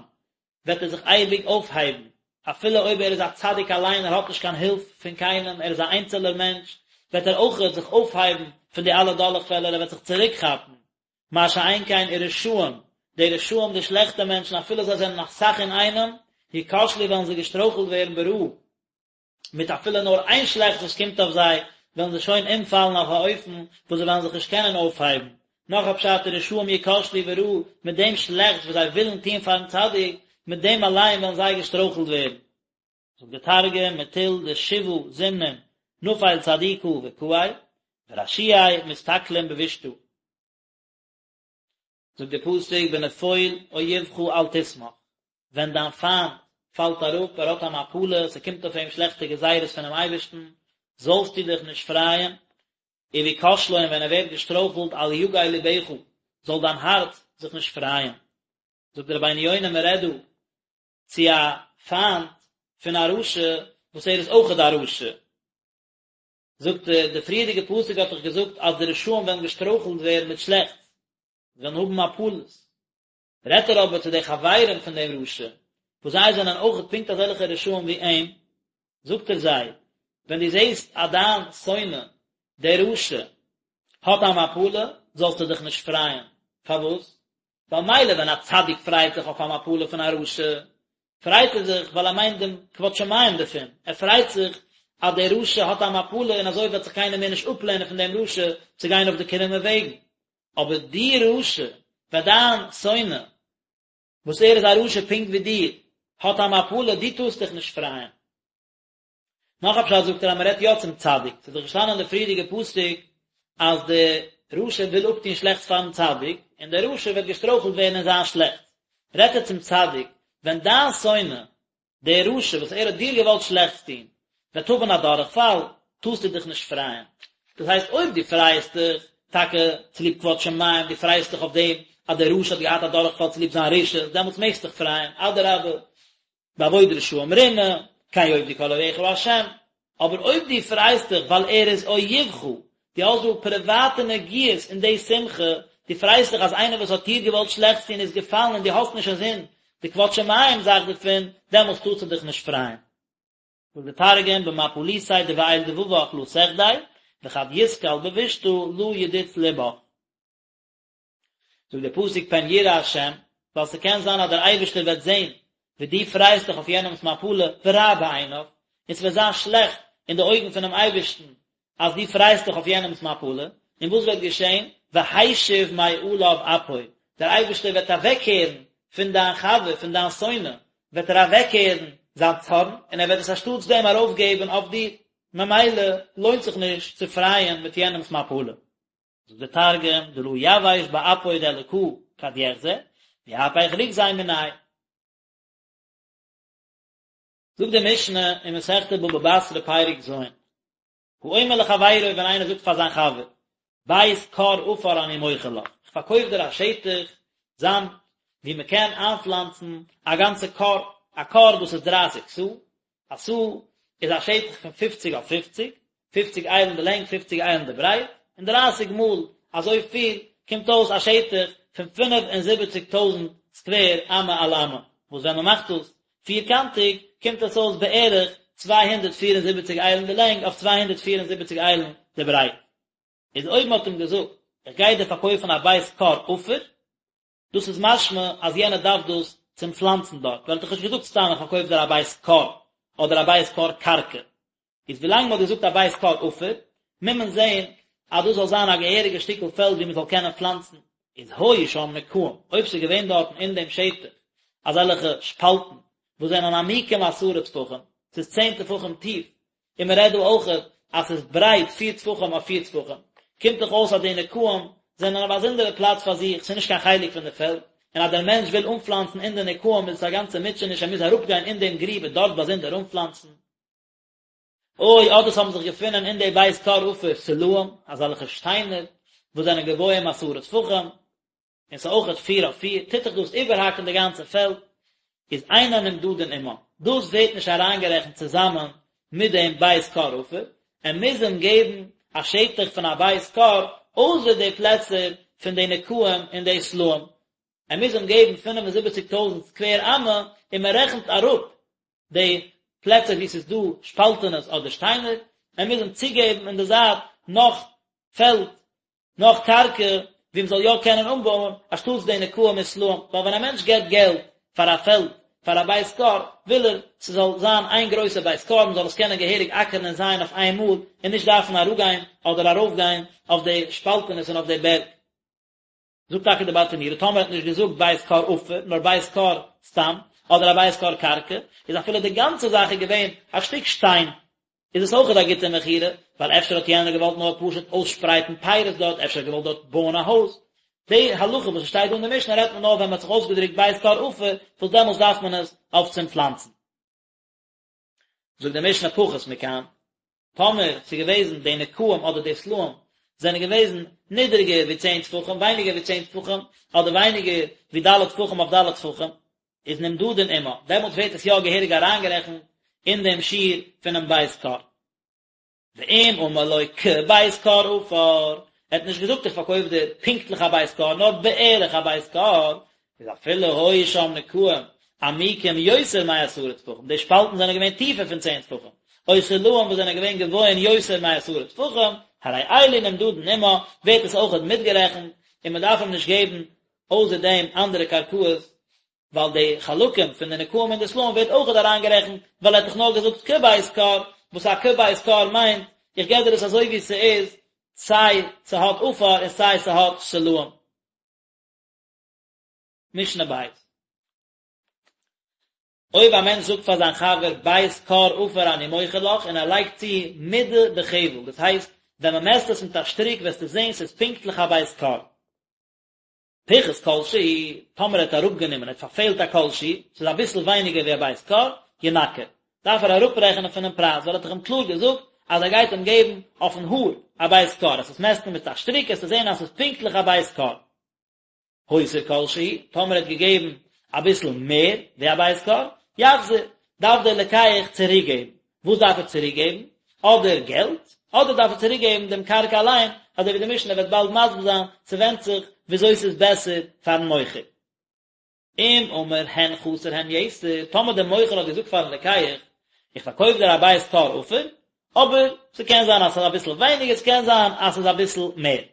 וועט ער זיך אייביג אויפהייבן, אפילו אויב ער איז א צדיק אליין, ער האט נישט קיין הילף פון קיינעם, ער איז א איינצעלער מענטש, וועט ער אויכעט זיך אויפהייבן פון די אלע דורכפעלער, ער וועט זיך צוריקכאפן, מה שאין כן ורשעים, די רשעים די שלעכטע מענטשן אפילו זיי זענען אסאך אינאיינעם, יכשלו וועלן זיי געשטרויכלט ווערן ברעה, מיט אפילו נאר איין שלעכטס וואס קומט אויף זיי, וועלן זיי שוין אומפאלן אויף א אופן וואס זיי וועלן זיך נישט קענען אויפהייבן. נאך א פשט ורשעים יכשלו ברעה, מיט דעם שלעכטס וואס זיי ווילן טון פארן צדיק, מיט דעם אליין וועלן זיי געשטרויכלט ווערן. זאגט דער תרגום, מטול דשבעה זימנין נפיל צדיקא וקאי, ורשיעי מתתקלין בבישתא. זאגט דער פסוק בנפול אויבך אל תשמח, ווען דיין פיינט פאלט אראפ, ער האט א מפלה, ס'קומט אויף אים שלעכטע גזירות פונעם אייבערשטן, זאלסטו דיך נישט פרייען, ובכשלו און ווען ער ווערט געשטרויכלט אל יגל לבך, זאל דיין הארץ זיך נישט פרייען. זאגט דער רבינו יונה מען רעדט דא צו א פיינט פון א רשע וואס ער איז אויכעט א רשע, זאגט ער, די פריערדיגע פסוק האט דאך געזאגט אז די רשעים וועלן געשטרויכלט ווערן מיט שלעכטס, זיי וועלן האבן מפלות. רעדט ער אבער צו די חברים פון דעם רשע, וואס זיי זענען אויכעט פונקט אזעלכע רשעים ווי אים, זאגט ער זיי, ווען דו זעסט אז דיין שונא, דער רשע, האט א מפלה, זאלסטו דיך נישט פרייען. פארוואס? ווייל מילא ווען א צדיק פרייט זיך אויף א מפלה פון א רשע, פרייט ער זיך ווייל ער מיינט דעם כבוד שמים דערפון, ער פרייט זיך אז דער רשע האט א מפלה און אזוי וועט זיך קיינער מער נישט אפלערנען פון דעם רשע צו גיין אויף די קרומע וועגן. אבער דו רשע, ווען דיין שונא, וואס ער איז א רשע פונקט ווי דיר, האט א מפלה, דו טארסט דיך נישט פרייען. נאך א פשט זאגט ער אז מען רעדט יא צום צדיק, ס'איז דאך געשטאנען אין די פריערדיגע פסוק אז די רשע וויל אפטון שלעכטס פארן צדיק, און דער רשע וועט געשטרויכלט ווערן אין זיין שלעכטס, רעדט ער צום צדיק, ווען דיין שונא, דער רשע וואס ער האט דיר געוואלט שלעכטס טון, וועט האבן א דורכפאל, טארסטו דיך נישט פרייען. דאס הייסט אויב דו פרייעסט דיך טאקע צוליב כבוד שמים, דו פרייעסט דיך אויף דעם אז דער רשע האט געהאט א דורכפאל צוליב זיין רשעות, דעמאלטס מעגסטו דיך פרייען, אדרבה, באבוד רשעים רנה, כן יאבדו כל אויביך ה'. אבער אויב דו פרייסט דיך ווייל ער איז אויבך, דו האסט דא פריוואטע נגיעות אין די שמחה, דו פרייסט דיך אז איינער וואס האט דיר געוואלט שלעכטס טון איז געפאלן און דו האסט נישט אינזין די כבוד שמים זאך דערפון, דעמאלטס טארסטו דיך נישט פרייען. זאגט דער תרגום במפליתיה דבעיל דבבך לא תחדי, וכד יתקל בבישתא לא ידוץ לבך. זאגט דער פסוק פן יראה השם, ווייל ס'קען זיין אז דער אייבערשטער וועט זען ווי דו פרייסט דיך אויף יענעמ'ס מפלה ורע בעיניו, און ס'וועט זיין שלעכט אין די אויגן פונעם אייבערשטן אז דו פרייסט דיך אויף יענעמ'ס מפלה, און וואס וועט געשען? והשיב מעליו אפו, דער אייבערשטער וועט אוועקקערן פון דיין חבר, פון דיין שונא, וועט ער אוועקקערן זיין צארן, און ער וועט עס אנשטאטס דעם ארויפגעבן אויף דיר, ממילא לוינט זיך נישט צו פרייען מיט יענעמ'ס מפלה. זאגט דער תרגום, דלא יבאש באפוי דאלקא כד יחזי, ויהפך רוגזיה מיניה. זאגט די משנה אין מסכת בבא בתרא פרק ז', האומר לחבירו ווען איינער זאגט פאר זיין חבר, בית כור עפר אני מוכר לך, איך פארקויף דיר א שטח זאמד וואו מען קען איינפלאנצן א גאנצע כור, א כור דאס איז דרייסיג סאה, א סאה איז א שטח פון פופציג אויף פופציג, פופציג איילן די לענג פופציג איילן די ברייט, און דרייסיג מאל אזוי פיל קומט אויס א שטח פון פינף און זיבעציג טויזנט סקווער אמה על אמה, וואס ווען מען מאכט דאס פירקאנטיג קומט עס אויס בערך 274 איילן די לענג אויף 274 איילן די ברייט. איז אויב מען האט אים געזאגט איך גיי דיר פארקויפן א בית כור עפר, דאס איז משמע אז יענער דארף דאס צום פלאנצן דארט, ווייל ער האט דאך נישט געזאגט סתם איך פארקויף דיר א בית כור, אדער א בית כור קרקע. איז ווילאנג מען האט געזאגט א בית כור עפר, מוז מען זען אז דאס זאל זיין א געהעריגע שטיקל פעלד ווי מען זאל קענען פלאנצן. איז היו שם נקעים, אויב ס'איז געווען דארטן אין דעם שטח אזעלכע שפאלטן וואס זענען עמוקים עשרה טפחים, ס'איז צען טפחים טיף, און מען רעדט דא אויכעט אז ס'איז ברייט פיר טפחים אויף פיר טפחים, קומט דאך אויס אז די נקעים זענען א באזונדערע פלאץ פאר זיך, ס'איז נישט קיין חלק פון די פעלד, און אז דער מענטש וויל אנפלאנצן אין די נקעים איז עס א גאנצע מוטשעניש ער מוז אראפגיין אין דעם גריב און דארט באזונדער אנפלאנצן. או אדער ס'האבן זיך געפונען אין די בית כור עפר סלעים, אזעלכע שטיינער וואס זענען גבוהים עשרה טפחים, און ס'איז אויכעט פיר אויף פיר, טוט דאך דאס איבערהאקן די גאנצע פעלד, איז אינן נמדדין עמה, דאס ווערט נישט אריינגערעכנט צוזאמען מיט דעם בית כור עפר, ער מוז אים געבן א שטח פון א בית כור אויסער די פלעצער פון די נקעים און די סלעים, ער מוז אים געבן פינף און זיבעציק טויזנט סקווער אמה, און מען רעכנט אראפ די פלעצער וואו ס'איז דא שפאלטענעס אדער שטיינער, ער מוז אים צוגעבן אין די זייט נאך פעלד נאך קרקע וואו מ'זאל יא קענען אנבויען, אנשטאטס די נקעים און סלעים, ווייל ווען א מענטש געבט געלט פאר א פעלד פאר א בית כור, וויל ער ס'זאל זיין איין גרויסע בית כור, מ'זאל עס קענען געהעריג אקערן און זייען אויף איין מאל, און נישט דארפן אראפגיין אדער ארויפגיין אויף די שפאלטענעס און אויף די בערג. זאגט טאקע די ברטנורא, טאמער האט נישט געזאגט בית כור עפר, נאר בית כור סתם, אדער א בית כור קרקע, איז אפילו די גאנצע זאך איז געווען א שטיק שטיין, איז עס אויכעט א גוטע מכירה, ווייל אפשר האט יענער געוואלט נאר פשוט אויסשפרייטן פירות דארט, אפשר האט געוואלט דארט בויען א הויז. די הלכה וואס עס שטייט דא אין די משנה רעדט מען נאר ווען מען האט זיך אויסגעדרוקט בית כור עפר, וואס דעמאלטס דארף מען עס אויף צום פלאנצן. זאגט די משנה פחות מכאן, טאמער ס'איז געוועזן די נקעים אדער די סלעים זענען געוועזן נידעריגער ווי צען טפחים, ווייניגער ווי צען טפחים, אדער ווייניגער ווי ד' טפחים אויף ד' טפחים, איז נמדדין עמה, דעמאלטס ווערט עס יא געהעריג אריינגערעכנט אין דעם שיעור פונעם בית כור. ואם אמר לו כבית כור עפר, ער האט נישט געזאגט איך פארקויף דיר פונקטליך א בית כור, נאר בערך א בית כור, איז אפילו היו שם נקעים עמוקים יותר מעשרה טפחים, די שפאלטן זענען געווען טיפער פון צען טפחים, או סלעים וואס זענען געווען גבוהין יותר מעשרה טפחים, הרי אלו נמדדין עמה, ווערט עס אויכעט מיטגערעכנט, און מען דארף אים נישט געבן אויסער דעם אנדערע קרקעות, ווייל די חלקים פון די נקעים און די סלעים ווערט אויכעט אריינגערעכנט, ווייל ער האט דאך נאר געזאגט כבית כור, וואס א כבית כור מיינט, איך געב דיר עס אזוי ווי ס'איז, סיי ס'האט עפר און סיי ס'האט סלעים. משנה בית. אויב א מענטש זאגט פאר זיין חבר בית כור עפר אני מוכר לך און ער לייגט צו מודה בחבל, דאס הייסט ווען מען מעסט עס מיט א שטריק וועסטו זען ס'איז פונקטליך א בית כור. פיחת כל שהוא, טאמער ער האט אראפגענומען, ער האט פארפעלט א כל שהוא, ס'איז אביסל ווייניגער ווי א בית כור, ינכה, דארף ער אראפרעכענען פונעם פרייז, ווייל ער האט דאך אים קלאר געזאגט אז ער גייט אים געבן אויפן האר א בית כור, אז עס מעסטן מיט א שטריק וועסטו זען אז ס'איז פונקטליך א בית כור. הותיר כל שהוא, טאמער ער האט געגעבן אביסל מער ווי א בית כור, יחזיר, דארף דער לוקח צוריקגעבן. וואס דארף ער צוריקגעבן? אדער געלט, אדער דארף ער צוריקגעבן דעם קרקע אליין, אזוי ווי די משנה וועט באלד מסביר זיין, ס'ווענדט זיך וויאזוי ס'איז בעסער פאר'ן מוכר. אם אמר הן חסר הן יתר, טאמער דער מוכר האט געזאגט פאר'ן לוקח, איך פארקויף דיר א בית כור עפר, אבער ס'קען זיין אז ס'איז אביסל ווייניגער, ס'קען זיין אז ס'איז אביסל מער.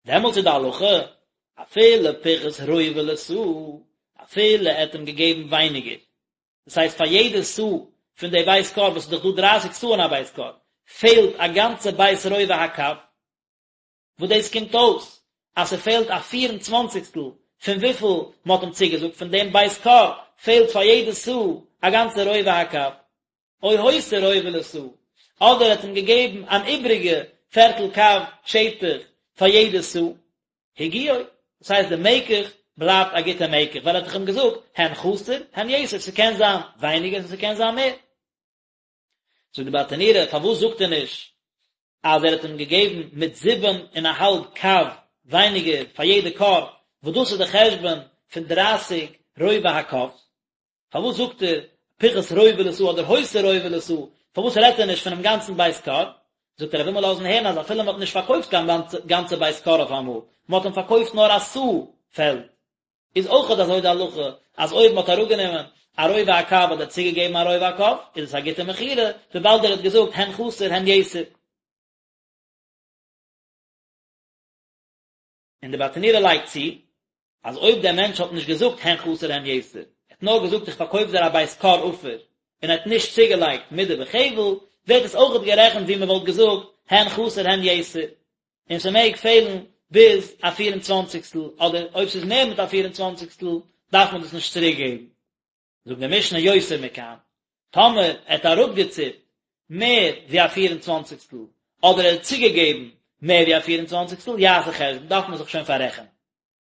דעמאלטס איז די הלכה, אפילו פיחת רובע לסאה, אפילו ער האט אים געגעבן ווייניגער, דאס הייסט פאר יעדע סאה פון די בית כור, וואס איז דאך דא דרייסיג סאה אין א בית כור, פעלט א גאנצע בית רובע הקב, וואס דאס קומט אויס אז ס'פעלט א פיר און צוואנציגסטל פון וויפיל מ'האט אים צוגעזאגט פון דעם בית כור, פעלט פאר יעדע סאה א גאנצע רובע הקב. או הותיר רובע לסאה, אדער ער האט אים געגעבן אן איבריגע פערטל קב שטח פאר יעדע סאה, הגיעו, דאס הייסט די מקח בלייבט א גוטע מקח, ווייל ער האט דאך אים געזאגט הן חסר הן יתר, ס'קען זיין ווייניגער און ס'קען זיין מער. זאגט די ברטנורא, פארוואס זאגט ער נישט אז ער האט אים געגעבן מיט זיבן און א האלב קב ווייניגער פאר יעדע כור, וואס דאס איז די חשבון פון דרייסיג רובע הקב? פארוואס זאגט ער פיחת רובע לסאה אדער הותיר רובע לסאה, פארוואס רעדט ער נישט פונעם גאנצן בית כור? זאגט ער ער וויל מיר לאזן הערן אז אפילו מען האט נישט פארקויפט קיין גאנצע בית כור אויף אמאל, מען האט אים פארקויפט נאר א סאה פעלד, איז אויכעט אזוי די הלכה אז אויב מען האט אראפגענומען א רובע הקב אדער צוגעגעבן א רובע הקב איז עס א גוטע מכירה, וויבאלד ער האט געזאגט הן חסר הן יתר. און די ברטנורא לייגט צו, אז אויב דער מענטש האט נישט געזאגט הן חסר הן יתר, ער האט נאר געזאגט איך פארקויף דיר א בית כור עפר, און ער האט נישט צוגעלייגט מדה בחבל, ווערט עס אויכעט גערעכנט ווי מען וואלט געזאגט הן חסר הן יתר, און ס'מעג פעלן ביז א פיר און צוואנציגסטל, אדער אויב ס'איז מער מיט א פיר און צוואנציגסטל דארף מען דאס נישט צוריק געבן. זאגט די משנה יותר מכאן, טאמער ער האט אראפגעציפט מער ווי א פיר און צוואנציגסטל, אדער ער האט צוגעגעבן מער ווי א פיר און צוואנציגסטל, יעשה חשבון, דארף מען זיך שוין פאררעכענען.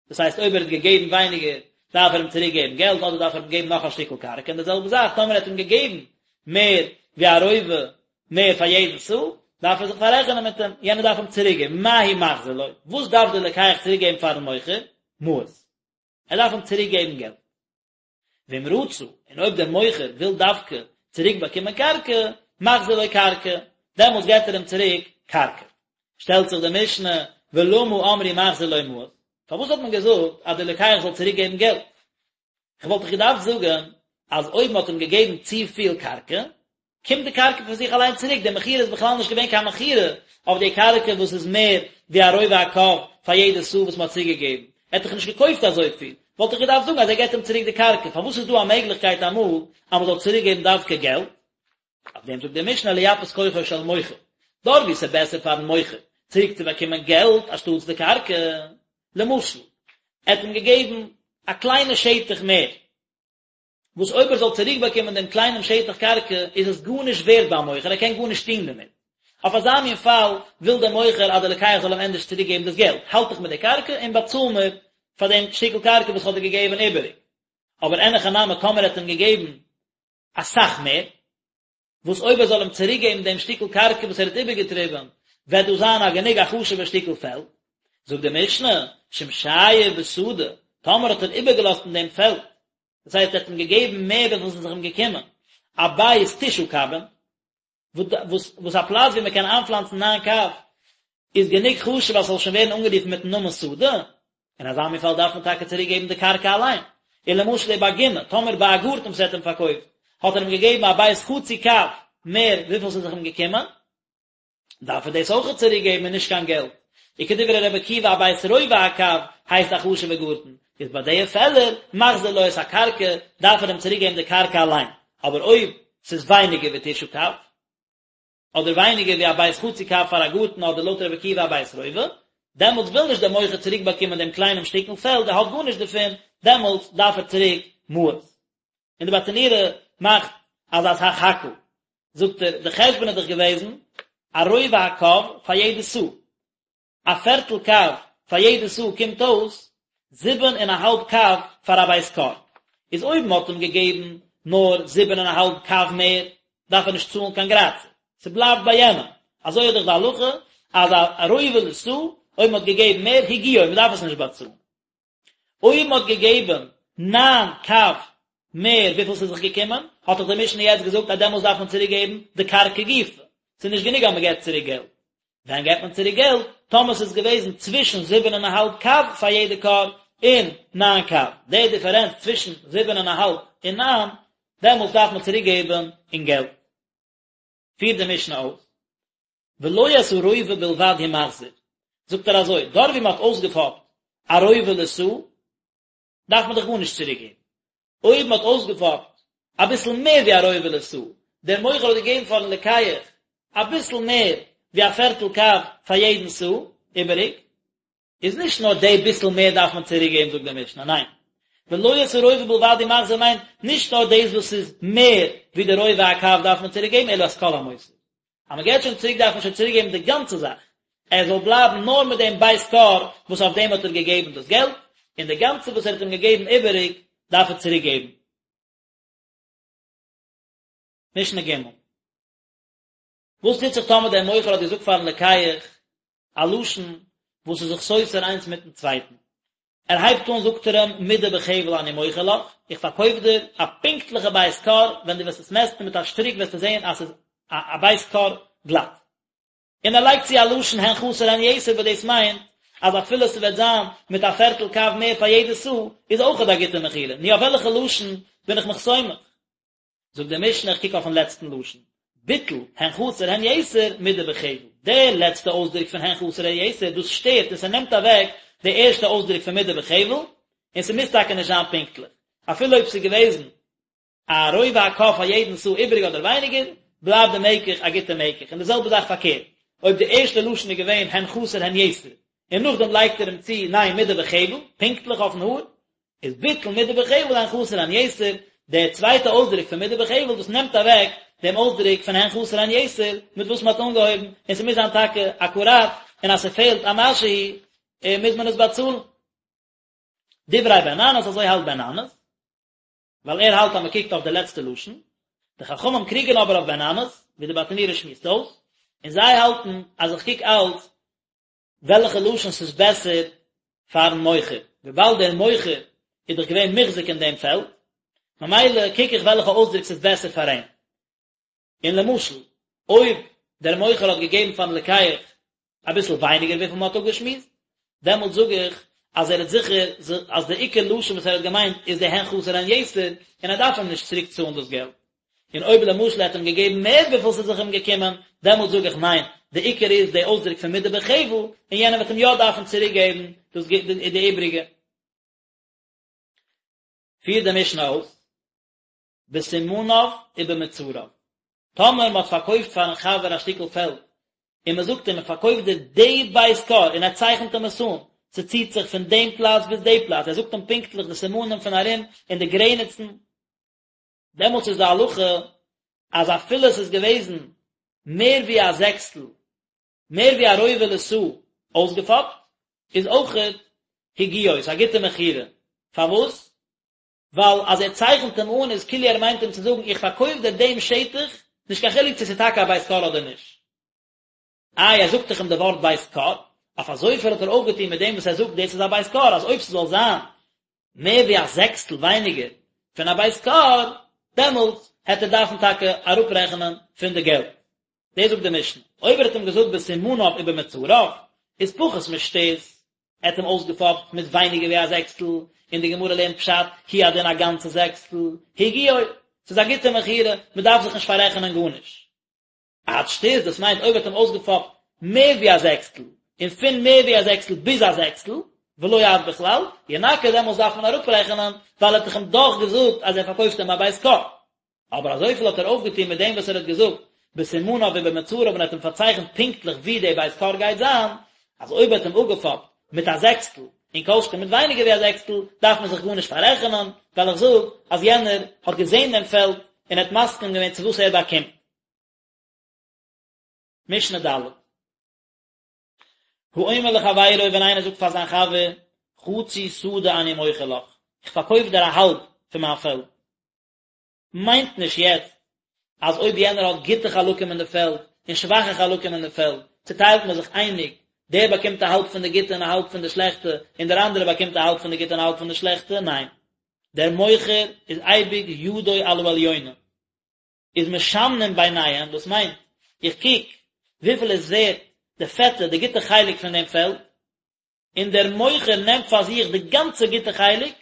דאס הייסט אויב ער האט געגעבן ווייניגער, דארף ער אים צוריק געבן געלט, אדער דארף ער אים געבן נאך א שטיקל קרקע, און די זעלבע זאך טאמער ער האט אים געגעבן מער ווי א רובע. מער פאר יעדן סאה, דארף ער זיך פאררעכענען מיט אים, יענער דארף אים צוריק געבן, מה הוא מחזיר לו, וואס דארף דער לוקח צוריק געבן פארן מוכר? מעות. ער דארף אים צוריק געבן געלט. ואם רצה, און אויב דער מוכר וויל דווקא צוריק באקומען קרקע, מחזיר לו קרקע, דעמאלטס געבט ער אים צוריק קרקע. שטעלט זיך די משנה, ולמה אמרו מחזיר לו מעות? פארוואס האט מען געזאגט אז דער לוקח זאל צוריק געבן געלט? כ'וואלט דאך געדארפט זאגן אז אויב מ'האט אים געגעבן צופיל קרקע, קומט די קרקע פון זיך אליין צוריק, די מכירה איז בכלל נישט געווען קיין מכירה אויף די קרקע וואס איז מער ווי א רובע הקב פאר יעדע סאה וואס מ'האט צוגעגעבן, ער האט דאך נישט געקויפט אזויפיל, וואלט איך געדארפט זאגן אז ער געבט אים צוריק די קרקע, פארוואס איז דא א מעגליכקייט אמאל אז מ'זאל צוריקגעבן דווקא געלט? אויף דעם זאגט די משנה לייפות כוחו של מוכר, דארט וואו ס'איז בעסער פארן מוכר צוריק צו באקומען געלט אנשטאטס די קרקע, למשל, ער האט אים געגעבן א קליינע שטח מער, וואס אויב ער זאל צוריק באקומען דעם קליינעם שטח קרקע איז עס גארנישט ווערט ביים מוכר, ער קען גארנישט טון דערמיט. אויף אזא מין פאל וויל דער מוכר אז דער לוקח זאל אים ענדערש צוריק געבן דאס געלט, האלט דיך מיט די קרקע און באצאל מיר פאר דעם שטיקל קרקע וואס איך האב דיר געגעבן איבעריג. אבער אין הכי נמי טאמער ער האט אים געגעבן אסאך מער, וואס אויב ער זאל אים צוריקגעבן דעם שטיקל קרקע וואס ער האט איבערגעטריבן, וועט דאס זיין א גענוג א חשוב'ער שטיקל פעלד. זאגט די משנה, שאם שייר בשדה, טאמער האט ער איבערגעלאזט אין דעם פעלד, דאס הייסט ער האט אים געגעבן מער וויפיל עס איז זיך אים געקומען, א בית תשעה קבין, וואס וואס א פלאץ ווי מען קען איינפלאנצן ניין קב, איז גענוג חשוב אז ס'זאל שוין ווערן אנגערופן מיטן נאמען שדה, אין אזא מין פאל דארף מען טאקע צוריק געבן די קרקע אליין. און למשל ובגינה, טאמער ביי א גארטן וואס ער האט אים פארקויפט, האט ער אים געגעבן א בית חצי קב מער וויפיל ס'איז זיך אים געקומען, דארף ער דאס אויכעט צוריק געבן און נישט קיין געלט. וכדברי רבי עקיבא א בית רובע הקב הייסט א חשוב'ע גארטן, איז ביי די פעלער מחזיר לו את הקרקע, דארף ער אים צוריק געבן די קרקע אליין. אבער אויב ס'איז ווייניגער ווי תשעה קב, אדער ווייניגער ווי א בית חצי קב פאר א גארטן אדער לויט רבי עקיבא א בית רובע, דעמאלטס וויל נישט דער מוכר צוריק באקומען דעם קליינעם שטיקל פעלד, ער האט גארנישט דערפון, דעמאלטס דארף ער צוריק מעות. און די ברטנורא מאכט אזא סך הכל, זאגט ער, די חשבון איז דאך געוועזן א רובע הקב פאר יעדע סאה, א פערטל קב פאר יעדע סאה קומט אויס זיבן און א האלב קב פאר א בית כור, איז אויב מען האט אים געגעבן נאר זיבן און א האלב קב מער, דארף ער נישט צאלן קיין גרייצער, ס'בלייבט ביי יענעם, אזוי איז דאך די הלכה אז א רובע לסאה, אויב מען האט געגעבן מער, הגיעו, מען דארף עס נישט באצאלן. אויב מען האט געגעבן ניין קב מער וויפיל ס'איז זיך געקומען, האט דאך די משנה יעצט געזאגט אז דעמאלס דארף מען צוריק געבן די קרקע גופא, ס'איז נישט גענוג אז מען געבט צוריק געלט. ווען געבט מען צוריק געלט? טאמער ס'איז געוועזן צווישן זיבן און א האלב קב פאר יעדע כור און ניין קב, די דיפערענץ צווישן זיבן און א האלב און ניין, דעמאלס דארף מען צוריק געבן אין געלט. פירט די משנה אויס, ולא את הרובע בלבד הוא מחזיר, זאגט ער אזוי, דארט ווי מען האט אויסגעפאפט א רובע לסאה, דארף מען דאך גארנישט צוריק געבן. אויב מען האט אויסגעפאפט אביסל מער ווי א רובע לסאה, דער מוכר האט געגעבן פארן לוקח אביסל מער ווי א פערטל קב פאר יעדן סאה איבעריג, איז נישט נאר די ביסל מער דארף מען צוריק געבן זאגט די משנה, ניין, ולא את הרובע בלבד הוא מחזיר מיינט נישט נאר דאס וואס איז מער ווי די רובע הקב דארף מען צוריק געבן אלא את כל המותר, אז מען געבט שוין צוריק דארף מען שוין צוריק געבן די גאנצע זאך, ער זאל בלייבן נאר מיט דעם בית כור וואס אויף דעם האט ער געגעבן דאס געלט, און די גאנצע וואס ער האט אים געגעבן איבעריג דארף ער צוריק געבן. משנה ג'. וואס טוט זיך טאמער דער מוכר האט געזאגט פארן לוקח א לשון וואס איז זיך סותר איינס מיטן צווייטן? ער הייבט אן זאגט ער אים מדה בחבל אני מוכר לך, איך פארקויף דיר א פונקטליכע בית כור, ווען דו וועסט עס מעסטן מיט א שטריק וועסטו זען אז ס'איז א בית כור גלאט. און ער לייגט צו א לשון הן חסר הן יתר וואס דאס מיינט אז אפילו ס'וועט זיין מיט א פערטל קב מער פאר יעדע סאה איז אויכעט א גוטע מכירה, נו אויף וועלכע לשון בין איך מיך סומך? זאגט די משנה איך קוק אויפן לעצטן לשון, ביטל הן חסר הן יתר מדה בחבל, די לעצטע אויסדרוק פון הן חסר הן יתר דאס שטערט און ס'נעמט אוועק די ערשטע אויסדרוק פון מדה בחבל, און ס'מוז טאקע נישט זיין פונקטליך, אפילו אויב ס'איז געוועזן א רובע הקב פאר יעדן סאה איבעריג אדער ווייניגער, בלייבט די מקח א גוטע מקח, און די זעלבע זאך פארקערט, אויב די ערשטע לשון איז געווען הן חסר הן יתר, און נאכדעם לייגט ער אים צו ניין מדה בחבל, פונקטליך אויפן האר, איז ביטל מדה בחבל הן חסר הן יתר, דער צווייטע אויסדרוק פון מדה בחבל דאס נעמט אוועק דעם אויסדרוק פון הן חסר הן יתר מיט וואס מען האט אנגעהויבן, און ס'מוז זיין טאקע אקוראט, און אז ס'פעלט א משהו מוז מען עס באצאלן. דברי בן ננס, אזוי האלט בן ננס, ווייל ער האלט אז מען קוקט אויף די לעצטע לשון. די חכמים קריגען אבער אויף בן אמאס, ווי די ברטנורא שמועסט אויס, און זיי האלטן אז איך קוק אלץ וועלכע לשון ס'איז בעסער פארן מוכר, וויבאלד דער מוכר איז דאך געווען מוחזק אין דעם פעלד, ממילא קוק איך וועלכע אויסדרוק ס'איז בעסער פאר אים. און למשל, אויב דער מוכר האט געגעבן פארן לוקח אביסל ווייניגער וויפיל מ'האט אפגעשמועסט, דעמאלט זאג איך אז ער האט זיכער אז די עיקר לשון וואס ער האט געמיינט איז די הן חסר הן יתר, און ער דארף אים נישט צוריק צאלן דאס געלט. און אויב למשל ער האט אים געגעבן מער וויפיל ס'איז זיך אים געקומען, דעמאלט זאג איך ניין, די עיקר איז די אויסדרוק פון מדה בחבל, און יענער וועט אים יא דארפן צוריק געבן דאס די איבריגע. פירט די משנה אויס, בסימניו ובמצריו, טאמער מען האט פארקויפט פארן חבר א שטיקל פעלד, און מען זאגט אים איך פארקויף דיר די בית כור, און ער צייכנט אים עס אן, ס'ציט זיך פון דעם פלאץ ביז די פלאץ, ער זאגט אים פונקטליך די סימנים פון ארום און די גרעניצן, דעמאלטס איז די הלכה אז אפילו עס איז געוועזן מער ווי א זעקסטל, מער ווי א רובע לסאה אויסגעפאפט, איז אויכעט הגיעו, ס'איז א גוטע מכירה. פארוואס? ווייל אז ער צייכנט אים אן איז כאילו ער מיינט אים צו זאגן איך פארקויף דיר דעם שטח, נישט קיין חילוק צו ס'איז טאקע א בית כור אדער נישט. איי ער זאגט דאך אים די ווארט בית כור, אויף אזויפיל האט ער אויפגעטון מיט דעם וואס ער זאגט דאס איז א בית כור, אז אויב ס'זאל זיין מער ווי א זעקסטל ווייניגער פון א בית כור, דעמאלטס העט ער דארפן טאקע אראפרעכענען פון די געלט. דאס זאגט די משנה, אויב ער האט אים געזאגט בסימניו ובמצריו, איז פחות משתות, ער האט אים אויסגעפאפט מיט ווייניגער ווי א זעקסטל, און די גמרא לערנט פשט, הוא הדין א גאנצע זעקסטל, הגיעו, ס'איז א גוטע מכירה, מ'דארף זיך נישט פאררעכענען גארנישט. עד שתות, דאס מיינט אויב ער האט אים אויסגעפאפט מער ווי א זעקסטל, און פון מער ווי א זעקסטל ביז א זעקסטל, ולא עד בכלל, ינכה דעמאלס דארף מען אראפרעכענען, ווייל ער האט דאך אים דאך געזאגט אז ער פארקויפט אים א בית כור. אבער אזויפיל האט ער אויפגעטון מיט דעם וואס ער האט געזאגט בסימניו ובמצריו און האט אים פארצייכנט פונקטליך ווי די בית כור גייט זיין, אז אויב ער האט אים אפגעפאפט מיט א זעקסטל, און כל שכן מיט ווייניגער ווי א זעקסטל, דארף מען זיך גארנישט פאררעכענען, ווייל איך זאג אז יענער האט געזען דעם פעלד און האט מסכים געווען צו וואס ער באקומט. משנה ד'. האומר לחבירו ווען איינער זאגט פאר זיין חבר, חצי שדה אני מוכר לך, איך פארקויף דיר א האלב פון מיין פעלד. מיינט נישט יעצט אז אויב יענער האט גוטע חלקים אין די פעלד און שוואכע חלקים אין די פעלד, צוטיילט מען זיך אייניג, דער באקומט א האלב פון די גוטע און א האלב פון די שלעכטע, און דער אנדערער באקומט א האלב פון די גוטע און א האלב פון די שלעכטע, ניין. דער מוכר איז אייביג ידו על העליונה. איז משמנים ביניהם, דאס מיינט, איך קוק וויפיל איז ווערט די פעטע, די גוטע חלק פון דעם פעלד, און דער מוכר נעמט פאר זיך די גאנצע גוטע חלק,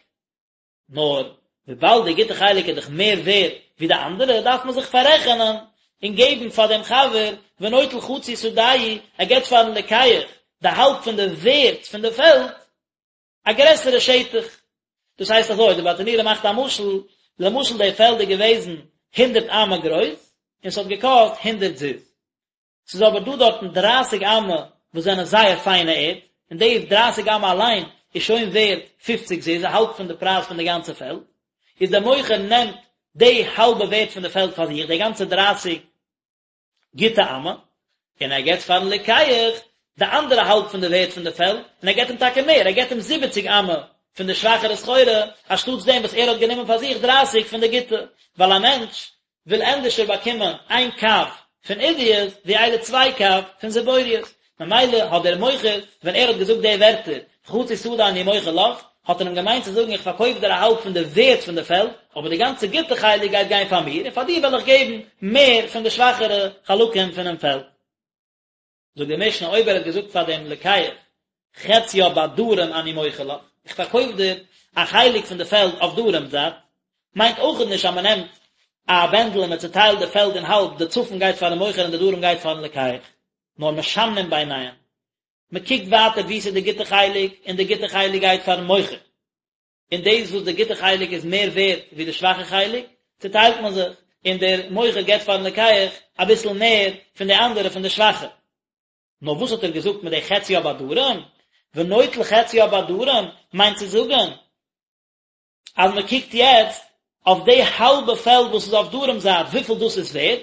נאר וויבאלד די גוטע חלק איז דאך מער ווערט ווי די אנדערע, דארף מען זיך פאררעכענען און געבן פאר דעם חבר, ונוטל חצי שדהו, ער געבט פארן לוקח די האלב פון די ווערט פון די פעלד, א גרעסערע שטח. דאס הייסט אזוי, די ברטנורא מאכט א משל, למשל די פעלד איז געוועזן הונדערט אמה גרויס, און ס'האט געקאסט הונדערט זוז. ס'איז אבער דא דארטן דרייסיג אמה וואס זענען זייער פיינע ערד, און די דרייסיג אמה אליין איז שוין ווערט פופציג זוז, א האלב פון די פרייז פון די גאנצע פעלד. איז דער מוכר נעמט די האלבע ווערט פון די פעלד פאר זיך, די גאנצע דרייסיג גוטע אמה, און ער געבט פארן לוקח די אנדערע האלב פון די ווערט פון די פעלד, און ער געבט אים טאקע מער, ער געבט אים זיבעציג אמה פון די שוואכערע סחורה, אנשטאטס דעם וואס ער האט גענומען פאר זיך דרייסיג פון די גוטע, ווייל א מענטש וויל ענדערשער באקומען איין קב פון עידית ווי איידער צוויי קב פון זיבורית, ממילא האט דער מוכר ווען ער האט געזאגט די ווערטער חצי שדה אני מוכר לך, האט ער אים געמיינט צו זאגן איך פארקויף דיר א האלב פון די ווערט פון די פעלד, אבער די גאנצע גוטע חלק גייט גיין פאר מיר, און פאר דיר וועל איך געבן מער פון די שוואכערע חלקים פונעם פעלד. זאגט די משנה אויב ער האט געזאגט פאר דעם לוקח חציה בדרום אני מוכר לך, איך פארקויף דיר א חלק פון די פעלד אויף דרום זייט, מיינט אויכעט נישט אז מען נעמט א בענדל און מען צוטיילט די פעלד אין האלב, די צפון גייט פארן מוכר און די דרום גייט פארן לוקח, נאר משמנים ביניהם, מען קוקט ווייטער וואו ס'איז די גוטע חלק, און די גוטע חלק גייט פארן מוכר, און דאס וואס די גוטע חלק איז מער ווערט ווי די שוואכע חלק, צוטיילט מען זיך, און דער מוכר געבט פארן לוקח אביסל מער פון די אנדערע פון די שוואכע. נאר וואס האט ער געזאגט מיט די חציה בדרום? ונוטל חציה בדרום מיינט צו זאגן אז מען קוקט יעצט אויף די האלבע פעלד וואס איז אויף דרום זייט וויפיל דאס איז ווערט,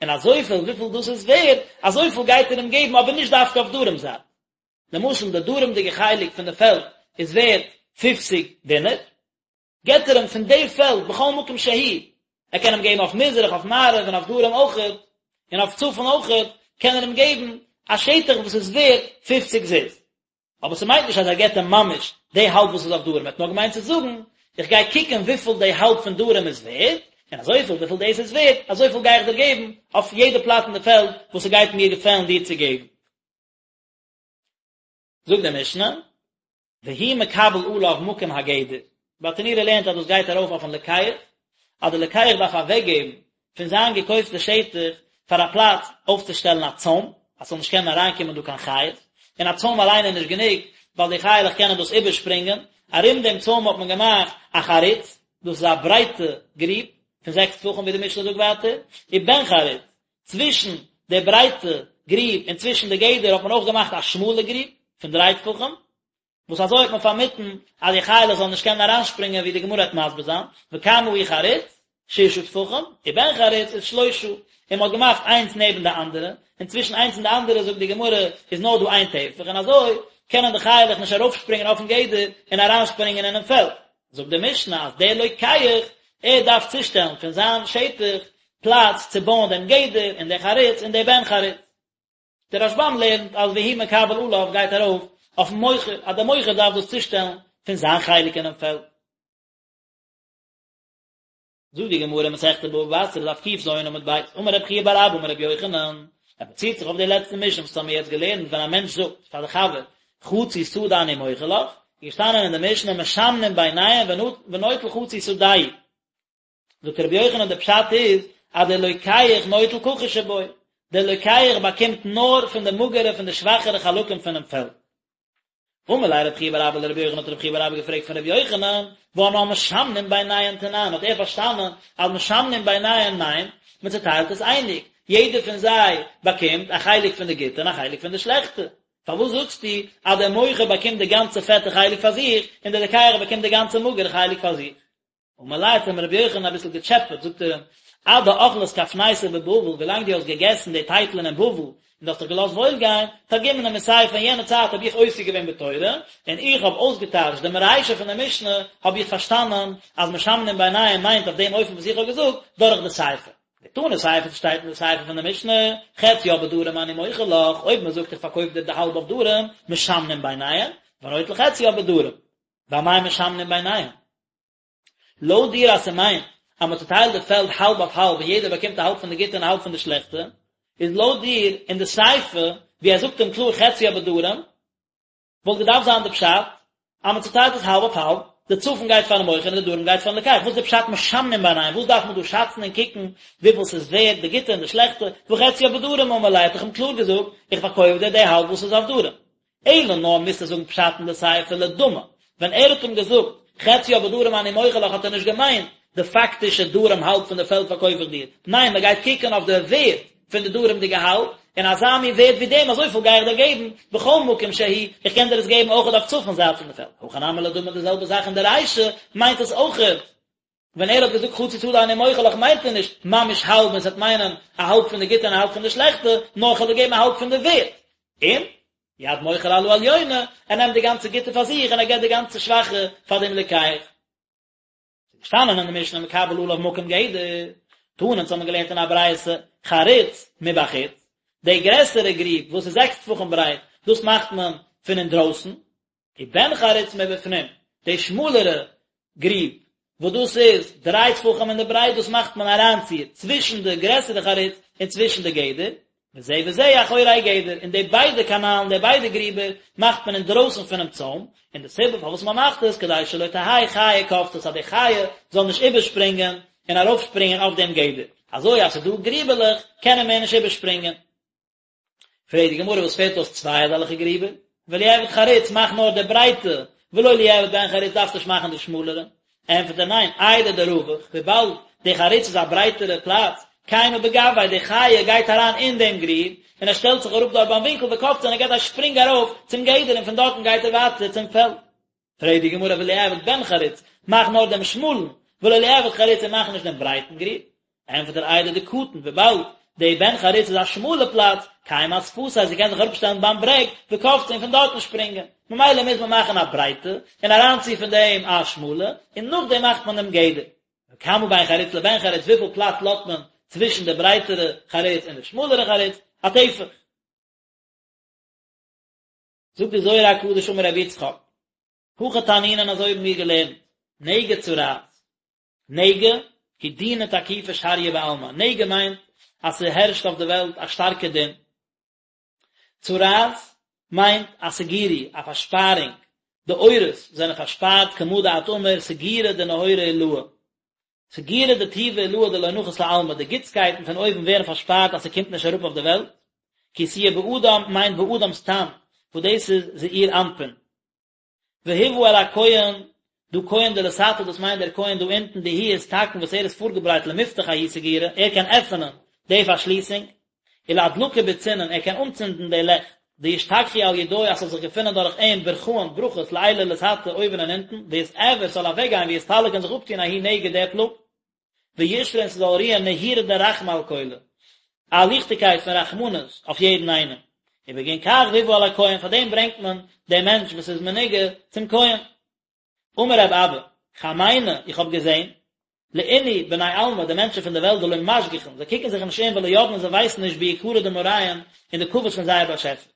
און אזויפיל וויפיל דאס איז ווערט, אזויפיל גייט ער אים געבן אבער נישט דווקא אויף דרום זייט. למשל די דרומ'דיגע חלק פון די פעלד איז ווערט פופציג דינר, געבט ער אים פון די פעלד בכל מקום שהוא. ער קען אים געבן אויף מזרח, אויף מערב און אויף דרום אויכעט, און אויף צפון אויכעט, קען ער אים געבן א שטח וואס איז ווערט פופציג זוז. אבער ס'מיינט נישט אז ער געבט אים ממש די האלב וואס איז אויף דרום, ער האט נאר געמיינט צו זאגן, איך גיי קוקן וויפיל די האלב פון דרום איז ווערט, און אזויפיל וויפיל דאס איז ווערט, אזויפיל גיי איך דיר געבן אויף יעדע פלאץ אין די פעלד וואס ס'גייט מיר געפעלן דיר צו געבן. זאגט די משנה, והוא מקבל עליו מקום הגדר, ברטנורא לערנט אז דאס גייט ארויף אויפן לוקח, אז דער לוקח דארף אוועקגעבן פון זיין געקויפטע שטח פאר א פלאץ אויפצושטעלן א צוים, אז ס'זאל נישט קענען אריינקומען דא קיין חיות, און א צוים אליין איז נישט גענוג, ווייל די חיה'לעך קענען דאס איבערשפרינגען, ארום דעם צוים האט מען געמאכט א חריץ, דאס איז א ברייטע גריב פון זעקס טפחים ווי די משנה זאגט ווייטער, ובן חריץ, צווישן די ברייטע גריב און צווישן די גדר האט מען אויך געמאכט א שמאלע גריב פון דריי טפחים, וואס אזוי האט מען פארמיטן אז די חיה'לעך זאלן נישט קענען אריינשפרינגען ווי די גמרא וועט מסביר זיין, וכמה הוא חריץ? ששה טפחים, ובן חריץ איז שלושה, און מען האט געמאכט איינס נעבן די אנדערע, און צווישן איינס און די אנדערע זאגט די גמרא איז נאר דא איין טפח, און אזוי קענען די חיה'לעך נישט ארויפשפרינגען אויפן גדר און אריינשפרינגען אינעם פעלד. זאגט די משנה אז דער לוקח ער דארף צושטעלן פון זיין שטח פלאץ צו בויען דעם גדר און די חריץ און די בן חריץ. דער רשב"ם לערנט אז והוא מקבל עליו גייט ארויף אויפן מוכר אז דער מוכר דארף דאס צושטעלן פון זיין חלק אינעם פעלד. זאגט די גמרא מסכת בבא בתרא דף ק"ז עמוד ב', אמר רב חייא בר אבא אמר רבי יוחנן, ער באציט זיך אויף די לעצטע משנה וואס האמיר יעצט געלערנט ווען א מענטש זאגט פאר די חבר חצי שדה אני מוכר לך, איז געשטאנען אין די משנה משמנים ביניהם ונוטל חצי שדהו, זאגט רבי יוחנן די פשט איז אז דער לוקח נוטל כחוש שבו, דער לוקח באקומט נאר פון די מאגערע פון די שוואכערע חלקים פונעם פעלד. אמר ליה רב חייא בר אבא לרבי יוחנן האט רב חייא בר אבא געפרעגט פון רבי יוחנן, והא אנן משמנים ביניהן תנן, האט ער פארשטאנען אז משמנים ביניהן מיינט, מען צוטיילט עס אייניג, יעדער פון זיי באקומט א חלק פון די גוטע און א חלק פון די שלעכטע, פארוואס זאגסטו אז דער מוכר באקומט די גאנצע פעטע חלק פאר זיך, און דער לוקח באקומט די גאנצע מאגערע חלק פאר זיך? אמר ליה האט אים רבי יוחנן אביסל געטשעפעט, זאגט ער אים, עד דאכלת כפנייתא בבבל, ווילאנג דו האסט געגעסן די טייטלען אין בבל, און דו האסט דיך געלאזט וואויל גיין, תרגימנא מסיפא, אין יענע צייט האב איך עוסק געווען בתורה, און איך האב אויסגעטייטשט דעם רישא פון דער משנה, האב איך פארשטאנען אז משמנים ביניהם מיינט אויף דעם אופן וואס איך האב געזאגט, דורך די סיפא. דתנא סיפא שטייט אין די סיפא פון די משנה, חציה בדרום אני מוכר לך, אויב מען זאגט איך פארקויף דיר די האלב אויף דרום, משמנים ביניהם, ונוטל חציה בדרום. ואמאי משמנים ביניהם? לויט דיר אז ס'מיינט אז מ'צוטיילט די פעלד האלב אויף האלב און יעדער באקומט א האלב פון די גוטע און א האלב פון די שלעכטע, איז לויט דיר אין די סיפא ווי ער זאגט אים קלאר חציה בדרום, וואלט געדארפט זיין די פשט אז מ'צוטיילט עס האלב אויף האלב, די צפון גייט פארן מוכר און די דרום גייט פארן לוקח, וואס איז די פשט משמנים ביניהם, וואס דארף מען דא שאצן און קוקן וויפיל ס'איז ווערד די גוטע און די שלעכטע, והא חציה בדרום אמר ליה האט דאך אים קלאר געזאגט איך פארקויף דיר די האלב וואס איז אויף דרום. אלא נאר מוזטו זאגן פשט אין די סיפא לדמי, ווען ער האט אים געזאגט חציה בדרום אני מוכר לך האט ער נישט געמיינט די פאקטישע דרום האלב פון די פעלד פארקויף איך דיר, ניין מען גייט קוקן אויף די ווערד פון די דרומ'דיגע האלב, און אזא מין ווערד ווי דעם אזויפיל גיי איך דיר געבן, בכל מקום שהוא, איך קען דיר עס געבן אויכעט אויף צפון זייט פון די פעלד, הכא נמי לדמי די זעלבע זאך אין די רישא מיינט עס אויכעט. ווען ער האט געזאגט חצי שדה אני מוכר לך מיינט ער נישט ממש האלב און ס'וועט מיינען א האלב פון די גוטע און א האלב פון די שלעכטע, נאר כ'וועל דיר געבן א האלב פון די ווערט. און, יד מוכר על העליונה, ער נעמט די גאנצע גוטע פאר זיך און ער געבט די גאנצע שוואכע פאר דעם לוקח. ס'איז געשטאנען אין די משנה מקבל עליו מקום גדר, תנא אונז האבן געלערנט אין א ברייתא, חריץ מבחוץ, די גרעסערע גריב וואס איז זעקס טפחים ברייט, דאס מאכט מען פון אינדרויסן, ובן חריץ מבפנים, די שמאלערע גריב, וואס דאס איז דריי טפחים אין די ברייט, דאס מאכט מען אריינציר צווישן די גרעסערע חריץ און צווישן די גדר, וזה וזה אחורי גדר, און די ביידע קאנאלן, די ביידע גריבער, מאכט מען אינדרויסן פונעם צוים, און די סיבה פארוואס מען מאכט עס, כדי שלא תהא חיה קופצת, אז די חיה זאל נישט איבערשפרינגען און ארויפשפרינגען אויף דעם גדר, אזוי אז ס'איז דא גריבעלעך, קען ער מער נישט איבערשפרינגען. פרעגט די גמרא וואס פעלט אויס צוויי אזעלכע גריבער? וליעבד חריץ מאך נאר די ברייטע, ולא ליעבד בן חריץ דארפסט נישט מאכן די שמאלערע. ענטפערט ער ניין, איידי דרווח, וויבאלד די חריץ איז א ברייטערע פלאץ, קיימא בגויה, די חיה גייט אריין אין דעם גריב, און ער שטעלט זיך אראפ דארט ביים ווינקל וקפצה און ער געט א שפרינג ארויף צום גדר און פון דארטן גייט ער ווייטער צום פעלד. פרעגט די גמרא וליעבד בן חריץ, מאך נאר דעם שמאלן, ולא ליעבד חריץ און מאך נישט דעם ברייטן גריב. ענטפערט ער איידי דקטין, וויבאלד די בן חריץ איז א שמאלע פלאץ, קיימא אשפתיה, זי קען זיך אראפשטעלן ביים ברעג, וקפצה און פון דארטן שפרינגען, ממילא מוז מען מאכן א ברייטע, און אריינצו פון דעם א שמאלע, און נאכדעם מאכט מען דעם גדר. וכמה בין חריץ לבן חריץ, וויפיל פלאץ לאזט מען צווישן די ברייטערע חריץ און די שמאלערע חריץ, א טפח. זאגט די זוהר הקדוש אמר רבי יצחק, הכי תנינן אזוי האבן מיר געלערנט, נגע צרעת, נגע, הוא דינא תקיפא שריא בעלמא, נגע מיינט אז ס'הערשט אויף די וועלט א שטארקע דין, צרעת מיינט א סגירו, א פארשפארונג, די אורות זענען פארשפארט כמה דאת אמר סגירא דנהורא עילאה, סגירא דטובא עילאה דלא נחית לעלמא, די גוטסקייטן פון אויבן ווערן פארשפארט אז ס'קומט נישט אראפ אויף די וועלט, כי תהיה באדם מיינט באדם סתם, וואס דאס איז זעיר אנפין. והובא אל הכהן, דא כהן דלתתא דאס מיינט דער כהן דא אונטן דאיהו אתתקן וואס ער איז פארגעברייט למפתח ההוא סגירא, ער קען עפענען די פארשליסונג, ולאדלקא בוצינין, ער קען אנצינדן די לעכט, דישתכחו על ידוי אז ס'זאל זיך געפינען דורך אים ברכאן, ברכות, לעילא ולתתא, אויבן און אונטן, ויתעבר, ס'זאל אוועקגיין, ויסתלק און זיך אפטון ההוא נגע די פלאג. וישרי און ס'זאל רוען נהורא דרחמי על כולא, א ליכטיגקייט פון רחמנות אויף יעדן איינעם. ובגין כך והובא אל הכהן, פאר דעם ברענגט מען דעם מענטש וואס איז מנוגע צום כהן. אמר רב אבא, חמינא, איך האב געזען, לאינהו בני עלמא, די מענטשן פון די וועלט דלא משגיחין, זיי קוקן זיך נישט אום ולא ידעין און זיי ווייסן נישט ביקרא דמאריהון אין די כבוד פון זייער באשעפער.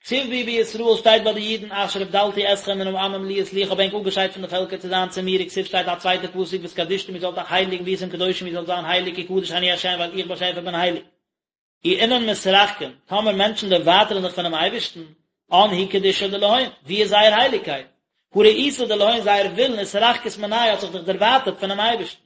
כתיב בהו בישראל שטייט ביי די אידן אשר הבדלתי אתכם מן העמים להיות לי איך האב ענק אפגעשיידט פון די פעלקער צו זיין צו מיר וכתיב שטייט א צווייטע פסוק והתקדשתם איר זאלט אייך הייליגן והייתם קדושים איר זאלט זיין הייליג כי קדוש אני ה' ווייל איך באשעפער בין הייליג. אי אינון מתרחקין, טאמער מענטשן דערווייטערן זיך פונעם אייבערשטן, אן היא קדושה דלהון, ווי איז זייער הייליגקייט? הא רעותא דלהון זייער ווילן אתרחקת מניה האט זיך דאך דערווייטערט פונעם אייבערשטן.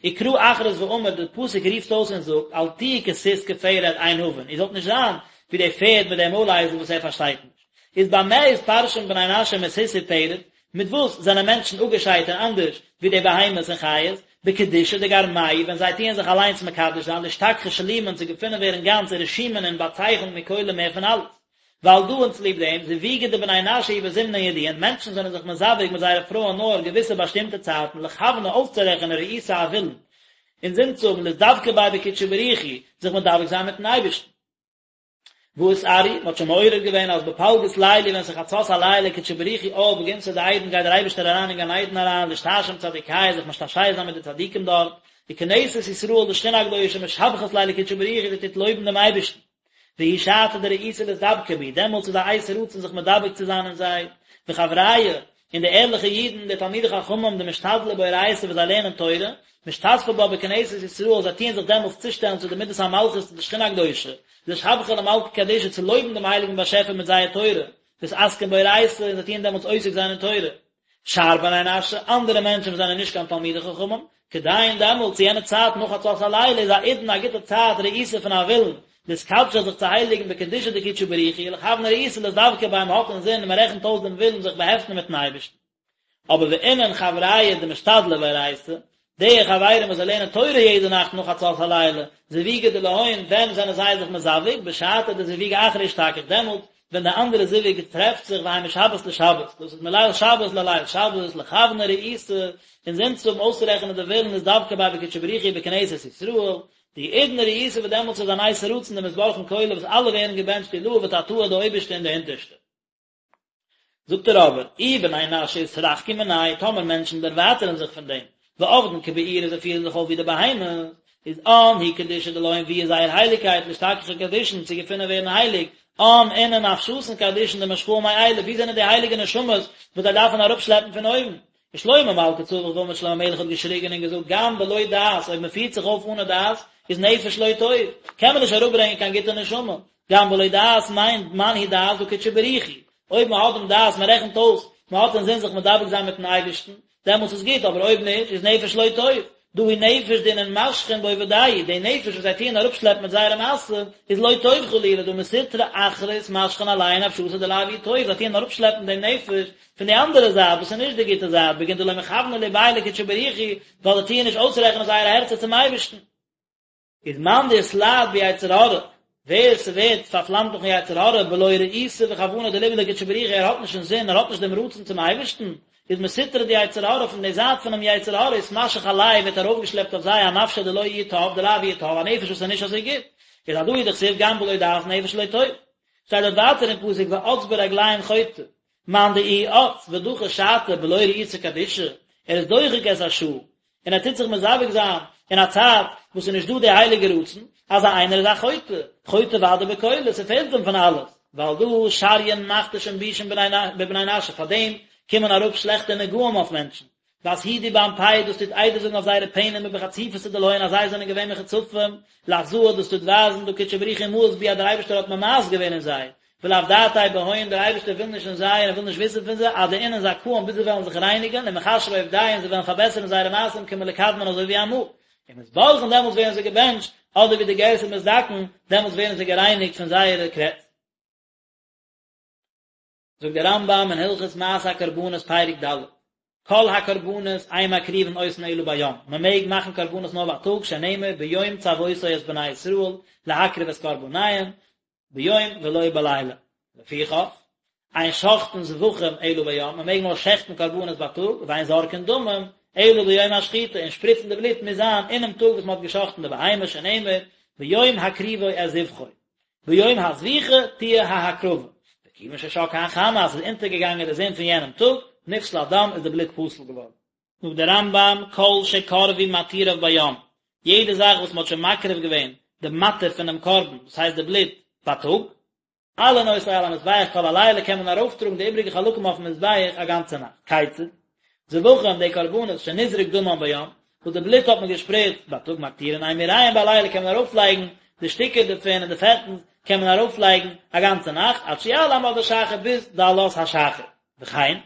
וקרא אכריז ואמר, די פסוק רופט אויס און זאגט, אל תהיו כסוס כפרד אין הבין, איר זאלט נישט זיין ווי די פערד מיט דעם מוילאייזל וואס ער פארשטייט נישט. איז במה אתפרשן בני נשא מסוס ופרד, מיט וואס זענען מענטשן אפגעשיידט און אנדערש ווי די בהמות און חיות? בקדושה דגרמייהו, ווען זיי טוען זיך אליינס מקדש זיין, לאשתכחא שלימין צו געפונען ווערן גאנץ ורשימין און באצייכנט מכולא מער פון אלעס. ועל דא און צוליב דעם, זיווגא דבני נשא הוא בזמנין ידיעין, מענטשן זענען זיך מזווג מיט זייערע פרויען נאר געוויסע באשטימטע צייטן, לכוונא אויסצורעכענען רעותא א ווילן, אין זין צו האבן לאתדבקא ביה בקודשא בריך הוא, זיך מדבק זיין מיטן אייבערשטן. והא אתערו, מען האט שוין מעורר געווען אז בפלגות ליליא ווען ס'איז חצות הלילה קודשא בריך הוא עאל בגנתא דעדן גייט דער אייבערשטער אריין אין גן עדן אריין לאשתעשע עם צדיקיא זיך משתעשע זיין מיט די צדיקים דארט, וכנסת ישראל די שכינה הקדושה משבחת ליה לקודשא בריך הוא זי טוט לויבן דעם אייבערשטן. והיא שעתא דרעותא לאתדבקא בהו, דעמאלטס איז א עת רצון זיך מדבק צו זיין אין זיי, וחבריא, און די ערליכע אידן, די תלמידי חכמים, דמשתדלי באורייתא וואס זיי לערנען תורה, משתתפי בה בכנסת ישראל, זיי טוען זיך דעמאלטס צושטעלן צו די מידת המלכות צו די שכינה הקדושה, לשבחא למלכא קדישא צו לויבן דעם הייליגן באשעפער מיט זייער תורה, ואתעסקן באורייתא, און זיי טוען דעמאלטס עוסק זיין אין תורה. שאר בני נשא, אנדערע מענטשן וואס זענען נישט קיין תלמידי חכמים, כדין דעמאלט צו יענע צייט נאך חצות הלילה איז האידנא א גוטע צייט רעותא פון א ווילן, לאתקדשא זיך צו הייליגן בקדושה דקודשא בריך הוא, ולכוונא רעותא לאתדבקא ביה מ'האט אינזין און מ'רעכנט אויס דעם ווילן זיך באהעפטן מיטן אייבערשטן. אבער ואינון חבריא דמשתדלי באורייתא, די חברים וואס זיי לערנען תורה יעדע נאכט נאך חצות הלילה, זיווגא דלהון, ווען זענען זיי זיך מזווג? בשעתא דזיווגא אחרא אשתכח, דעמאלט ווען די אנדערע זיווג טרעפט זיך והאי משבת לשבת, דאס איז מליל שבת לליל שבת, לכוונא רעותא, אינזין צו האבן אויסצורעכענען די ווילן לאתדבקא ביה בקודשא בריך הוא בכנסת ישראל, דהאידנא רעותא וואס דעמאלטס איז אן עת רצון דמתברכין כולא וואס אלע ווערן געבענטשט עילאה ותתאה די אויבערשטע און די אונטערשטע. זאגט ער אבער, אי בני נשא אתרחקו מניה, טאמער מענטשן דערווייטערן זיך פון דעם, ועבדין כבעירי זיי פירן זיך אויף ווי די בהמות, איז אן היא קדושה דלהון ווי איז זייער הייליגקייט לאשתכחא קדישין צו געפונען ווערן הייליג, אן אינון נפשתין קדישין דמשכאן מעילא, ווי זענען די הייליגע נשמות וואס זיי דארפן אראפשלעפן פון אויבן? ושלמה מלכא צווח ואמר שלמה המלך האט געשריגען און געזאגט גם בלא דעת אויב מען פירט זיך אויף אנע דעת איז נפש לא טוב קען מען נישט אראפברענגען קיין גוטע נשמה גם בלא דעת מיינט מאן הוא דעת דא קודשא בריך הוא אויב מען האט דעם דעת מען רעכנט אויס מען האט אינזין זיך מדבק זיין מיטן אייבערשטן דעמאלטס איז גוט אבער אויב נישט איז נפש לא טוב דא הוא נפש דאינון משכין בעובדייהו די נפש וואס זיי טוען אראפשלעפן מיט זייערע מעשים איז לא טוב חלילה דהא מסטרא אחרא אתמשכן עלייהו נפשתא דלאו איהו טוב זיי טוען אראפשלעפן דעם נפש פון די אנדערע זייט וואס איז נישט די גוטע זייט בגין דלא מכווני לבייהו לקודשא בריך הוא ווייל זיי טוען נישט אויסרעכענען זייערע הערצער צום אייבערשטן. איז מאן דאתלהב ביצר הרע, ווער ס'ווערט פארפלאמט דורכן יצר הרע בלא רעותא וכוונה דליבא לקודשא בריך הוא ער האט נישט אינזין ער האט נישט דעם רצון צום אייבערשטן, איז מסטרא דיצר הרע פון די זייט פונעם יצר הרע אתמשך עלייהו ווערט ארויפגעשלעפט אויף זיי אנפשא דלא איהי טב דלאו איהו טב א נפש וואס איז נישט אזוי גוט, איז הדא הוא דכתיב גם בלא דעת נפש לא טוב. שטייט דארט ווייטער אין פסוק ואץ ברגלים חוטא, מאן דאיהו אץ ודחי שעתא בלא רעותא קדישא, ער איז דוחק את השעה. און ער טוט זיך מזווג זיין אין א צייט וואס איז נישט דא די הייליגע רצון, אזא איינער איז א חוטא, חוטא ודאי בכולא, ס'פעלט אים פון אלעס, ועל דא שריין מכתשין בישין בבני נשא, פאר דעם קומען אראפ שלעכטע נגעים אויף מענטשן, ואסהידו באנפייהו דאס טוט עדות זאגן אויף זייערע פענעמער בחציפותא דלהון אז זיי זענען געווען מחוצפים, לאחזאה דאס טוט ווייזן דהא קודשא בריך הוא מאיס בהו אז דער אייבערשטער האט ממאס געווען אין זיי, ולאו דעתיה בהון דער אייבערשטער וויל נישט אין זיי און ער וויל נישט וויסן פון זיי עד דאינון זכאין ביז זיי וועלן זיך רייניגן ומכשרי עובדייהו און זיי וועלן פארבעסערן זייערע מעשים כמלקדמן אזוי ווי אמאל ומתברכין דעמאלטס ווערן זיי געבענטשט אדער ווי די גירסא מתדכאין דעמאלטס ווערן זיי גערייניגט פון זייערע קרעץ. זאגט דער רמב"ם אין הלכות מעשה הקרבנות פרק ד', כל הקרבנות אין מקריבין אותן אלא ביום, מען מעג מאכן קרבנות נאר בייטאג, שנאמר ביום צוותו את בני ישראל להקריב את קרבניהם, ביום ולא בלילה. לפיכך, אין שוחטין זבחים אלא ביום, מען מעג נאר שעכטן קרבנות בייטאג, ואין זורקין דמים אלא ביום השחיטה, און שפריצן די בלוט מוז זיין אינעם טאג וואס מען האט געשאכטן די בהמה, שנאמר ביום הקריבו את זבחו. ביום הזביחה תהיה ההקרבה, וכיוון ששקעה החמה אז ס'איז אונטערגעגאנגען די זון פון יענעם טאג, נפסל הדם איז די בלוט פסול געווארן. זאגט דער רמב"ם, כל שקרבו מתיריו ביום, יעדע זאך וואס מ'האט שוין מקריב געווען די מתיר פונעם קרבן, דאס הייסט די בלוט, בייטאג, מעלין אותו על המזבח כל הלילה קען מען ארויפטראגן די איבריגע חלקים אויפן מזבח א גאנצע נאכט. כיצד? זבחים, די קרבנות, שנזרק דמן ביום, וואס די בלוט האט מען געשפריצט בייטאג מקטירין אימוריהם בלילה קען מען ארויפלייגן די שטיקער דערפון און די פעטנס קען מען ארויפלייגן א גאנצע נאכט עד שיעלה עמוד השחר ביז די עלות השחר. וכן,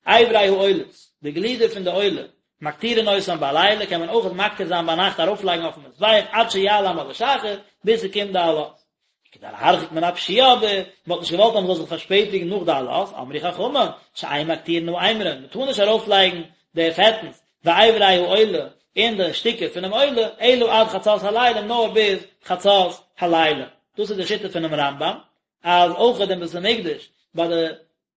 אברי העולות, די גלידער פון די עולה, מקטירין אותן בלילה קען מען אויך מקטיר זיין ביינאכט ארויפלייגן אויפן מזבח עד שיעלה עמוד השחר ביז ס'קומט די עלות. כדי להרחיק מן הפשיעה אבער, מען האט נישט געוואלט אז מען זאל זיך פארשפעטיגן נאך די עלות, אמרו חכמים, שאין מקטירין האימורין, מען טאר נישט ארויפלייגן די פעטנס, ואברי העולה, און די שטיקער פונעם עולה, אלא עד חצות הלילה, נאר ביז חצות הלילה. דאס איז די שיטה פונעם רמב"ם, אז אויך אין בית המקדש, ביי די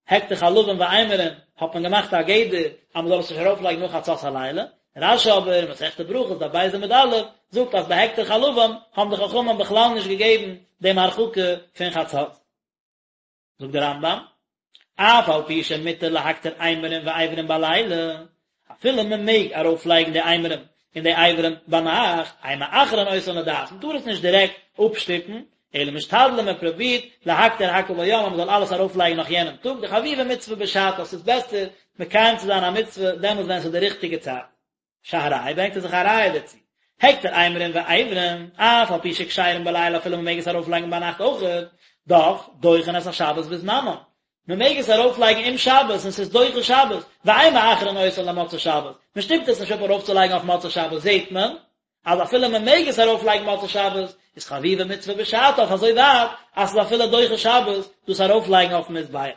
הקטר חלבים ואימורין האט מען געמאכט א גדר אז מען זאל עס נישט ארויף לייגן נאך חצות הלילה, רש"י אבער אין מסכת ברכות דף ב' עמוד א' זאגט אז ביי הקטר חלבים האבן די חכמים בכלל נישט געגעבן דעם הרחקה פון חצות. זאגט דער רמב"ם, אף על פי שמותר להקטיר אימורין ואיברים בלילה, אפילו מען מעג ארויף לייגן די אימורים און די אברים ביינאכט, אין מאחרין אותן לדעת, מען טאר עס נישט דירעקט אפשטופן, אלא משתדלין מען פרובירט להקטיר הכל ביום אז מען זאל אלעס ארויף לייגן נאך יענעם טאג, דחביבה מצוה בשעתה, ס'איז בעסער מקיים צו זיין א מצוה דעמאלס ווען ס'איז די ריכטיגע צייט. שהראי' ברענגט ער זיך א ראיה דערצו, הקטר אימורין ואיברים, אף על פי שכשרים בלילה אפילו מען מעג עס ארויף לייגן ביינאכט אויכעט, דאך, דוחין את השבת בזמנם, מען מעג עס ארויף לייגן אום שבת און ס'איז דוחה שבת, ואין מאחרין אותן למוצאי שבת, מען שטופט עס נישט אפ ארויף צו לייגן אויף מוצאי שבת, זעט מען אז אפילו מען מעג עס ארויף לייגן מוצאי שבת, איז חביבה מצוה בשעתה אויף אזוי ווייט אז ס'איז אפילו דוחה שבת דאס ארויף לייגן אויפן מזבח.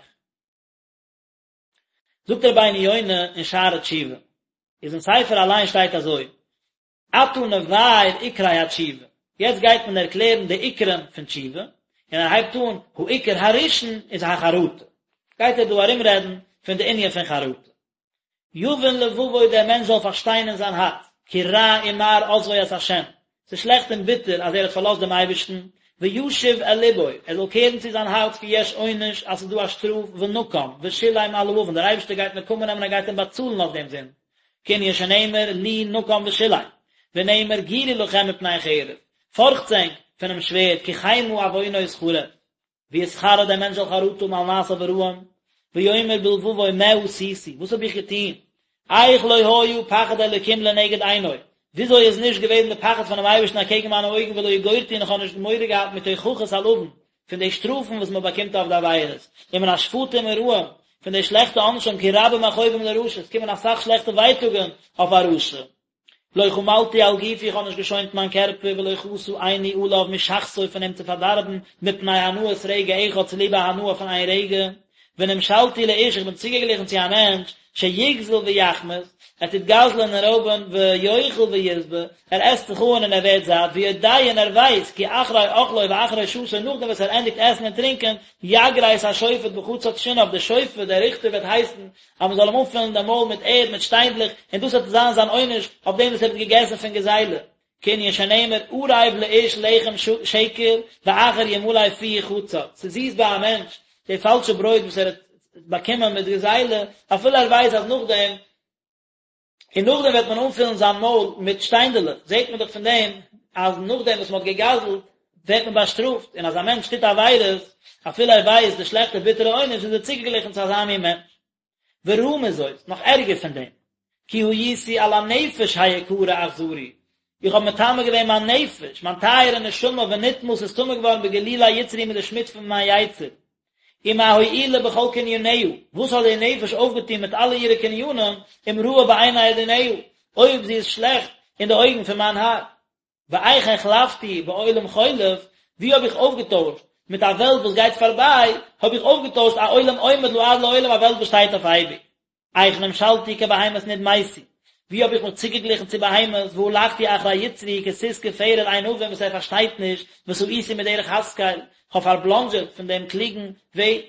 זאגט רבינו יונה אין שערי תשובה, איז אין ספר אליין שטייט אזוי, עתה נבאר עיקרי התשובה, יעצט גייט מען ערקלערן די עיקרים פון תשובה, און ער הייבט אן, העיקר הראשון איז החרטה, גייט ער דא ארומרעדן פון די ענין פון חרטה. יבין לבבו דער מענטש זאל פארשטיין אין זיין הארץ, כי רע ומר עזבו את ה', ס'איז שלעכט און ביטער אז ער האט פארלאזט דעם אייבערשטן, וישוב אל לבו, ער זאל קערן צו זיין הארץ כי יש עונש, אז ס'איז דא א שטראף, ונקם, ושילם על העון, דער אייבערשטער גייט נקמה נעמען ער גייט אים באצאלן אויף דעם זינד, כענין שנאמר לי נקם ושילם, ונאמר גורו לכם מפני חרב, פארכטס ענק פונעם שווערד, כי חמה עוונות חרב. ויתחרט דער מענטש זאל חרטה האבן על מעשיו הרעים, ויאמר בלבבו מה עשיתי, וואס האב איך געטון, איך לא היה פחד אלוקים לנגד עיני, וויאזוי איז נישט געוועזן די פחד פונעם אייבערשטן אקעגן מיינע אויגן ולא יגורתי און איך האב נישט מורא געהאט מתוכחות על עון, פון די שטראפן וואס מען באקומט אויף די עבירות, ומן השפטים הרעים, פון די שלעכטע עונשים, כי רבים מכאובים לרשע, עס קומען אסאך שלעכטע ווייטאגן אויף א רשע. לא חמלתי על גופי איך האב נישט געשוינט מיין קערפער ולא חסה עיני עליו משחתו פון אים צו פארדארבן מפני הנאת רגע אחד צוליב א הנאה פון איין רגע, ונמשלתי לאיש איך בין צוגעגליכן צו א מענטש שיגזל ויחמס, ער טוט גזל'ען און רויבען ויאכל וישבע, ער עסט זיך אן און ער ווערט זאט, ויודע און ער ווייסט כי אחרי אכלו ואחרי שתו נאכדעם וואס ער ענדיגט עסן און טרינקען, יגרס השופט בחצץ שיניו, דער שופט, דער ריכטער וועט הייסן אז מען זאל אים אנפילן דעם מויל מיט ערד, מיט שטיינדלעך, און דאס וועט זיין זיין עונש אויף דעם וואס ער האט געגעסן פון גזילה. כענין שנאמר ערב לאיש לחם שקר ואחר ימלא פיהו חצץ, ס'איז זיס ביי א מענטש די פאלשע ברויט וואס ער האט באקומען מיט גזילה, אפילו ער ווייסט אז נאכדעם. און נאכדעם וועט מען אנפילן זיין מויל מיט שטיינדעלעך, זעט מען דאך פון דעם אז נאכדעם וואס מען האט גע'גזל'ט ווערט מען באשטראפט, און אז א מענטש טוט עבירות אפילו ער ווייסט די שלעכטע ביטערע עונש איז ער צוגעגליכן צו אזא מין מענטש. ורעה מזאת, נאך ערגער פון דעם, כי הייתי על הנפש היקרה אכזרי, איך האב מטמא געווען מיין נפש, מיין טייערע נשמה, ונטמאה, ס'איז טמא געווארן בגלולי יצרי מיט די שמוץ פון מיין יצר. ומה הועילה בכל קניניה, וואס האט די נפש אויפגעטון מיט אלע אירע קנינים, אם רעה בעיני אדוניה, אויב זי איז שלעכט אין די אויגן פון מיין האר. ואיך החלפתי בעולם חולף, ווי האב איך אויפגעטוישט מיט א וועלט וואס גייט פארביי, האב איך אויפגעטוישט א עולם עומד לעד לעולם א וועלט וואס שטייט אויף אייביג. איך נמשלתי כבהמות נדמיתי, ווי האב איך מיך צוגעגליכן צו בהמות, והלכתי אחרי יצרי כסוס כפרד אין הבין וואס ער פארשטייט נישט, ותעיתי מדרך השכל, כ'האב פארבלאנדזשעט פון דעם קלוגן וועג.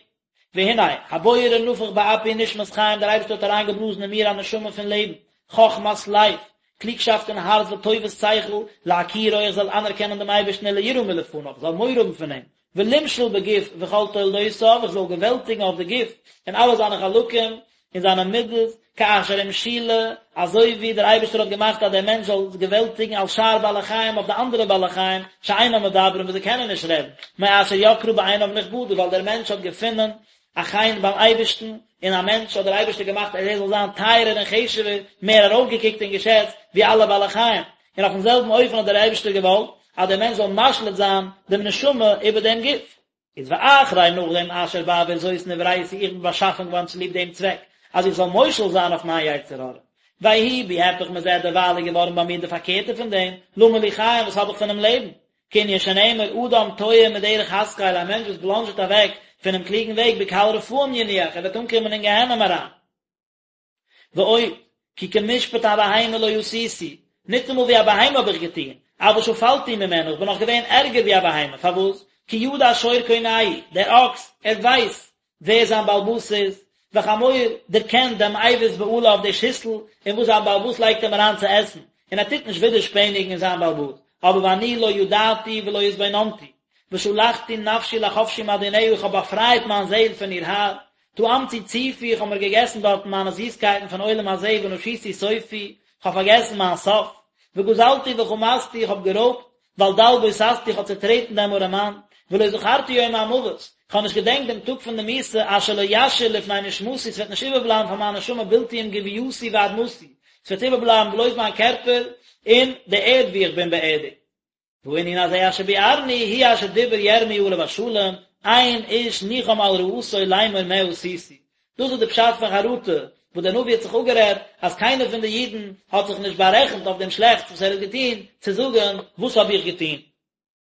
והנה, הבורא נפח באפי נשמת חיים, דער אייבערשטער האט אריינגעבלאזן אין מיר א נשמה פון לעבן, חכמת לב, קלוגשאפט אין הארץ וטובת שכל, להכירו איך זאל אנערקענען דעם אייבערשטן וליראה מלפניו, איך זאל מורא האבן פון אים, ולמשול בגוף וכל תולדותיו, איך זאל געוועלטיגן אויף די גוף און אלע זיינע חלקים און זיינע מידות, כאשר המשילה, אזוי ווי דער אייבערשטער האט געמאכט אז דער מענטש זאל געוועלטיגן על שאר בעלי חיים אויף די אנדערע בעלי חיים, שאינם מדברים וואס זיי קענען נישט רעדן, מאשר יקרה בעיניו נכבדה, ווייל דער מענטש האט געפונען א חן ביים אייבערשטן, און א מענטש האט דער אייבערשטער געמאכט אז ער זאל זיין טייערער און חשוב'ער, מער ארויפגעקוקט און געשעצט, ווי אלע בעלי חיים. און אויפן זעלבן אופן האט דער אייבערשטער געוואלט אז דער מענטש זאל משליט זיין דעם נשמה איבער דעם גוף. איז ואחרי נאכדעם אשר בעבור זאת נבראתי איך בין באשאפן געווארן צוליב דעם צוועק אז איך זאל מושל זיין אויף מיין יצר הרע. ויהי בי היפך מזה דערווייל איז געווארן ביי מיר די פארקערטע פון דעם, למה לי חיים וואס האב איך פונעם לעבן? כענין שנאמר אדם תועה מדרך השכל א מענטש וואס בלאנזשעט אוועק פונעם קלוגן וועג בקהל רפאים ינוח ער וועט אנקומען אין גיהנום אריין. ועוד, כי כמשפט הבהמה לא עשיתי, ניטאמאל ווי א בהמה האב איך געטון, אבל שפלתי ממנה, איך בין נאך געווען ערגער ווי א בהמה, פארוואס? כי ידע שור קונהו, דער אקס, ער ווייסט ווער זיין בעל הבית איז, וחמור דערקענט דעם אבוס בעליו די שיסל אין וואס זיין בעל הבית לייגט אים אריין צו עסן, און ער טוט נישט ווידערשפעניגן אין זיין בעל הבית, אבער ואני לא ידעתי ולא התבוננתי, ושלחתי נפשי לחפשי מאדוניה, איך האב באפרייט מיין זעהל פון איר האר, טעמתי צופי, איך האב מיר געגעסן דארטן מיינע זיסקייטן פון עולם הזה ונשיתי סופי, איך האב פארגעסן מיין סוף, וגזלתי וחמסתי, איך האב גערויבט, ועל דל בוססתי, איך האב צעטרעטן דעם ארעמאן, ולא זכרתי יום המוות, איך האב נישט געדענקט דעם טאג פון די מיתה, אשר לא ישאיר לפני נשמתי, ס'וועט נישט איבערבלייבן פאר מיין נשמה בלתי אם גוויתי ואדמתי, ס'וועט איבערבלייבן בלויז מיין קערפער און די ערד וואו איך בין באערדיגט. והענין הזה אשר ביארנו הוא אשר דיבר ירמי' עליו השלום, אין איש ניחם על רעתו לאמור מה עשיתי. דאס איז די פשט פון חרטה, וואס דער נביא האט זיך אפגערעדט אז קיינער פון די אידן האט זיך נישט בארעכנט אויף דעם שלעכטס וואס ער האט געטון, צו זאגן, וואס האב איך געטון?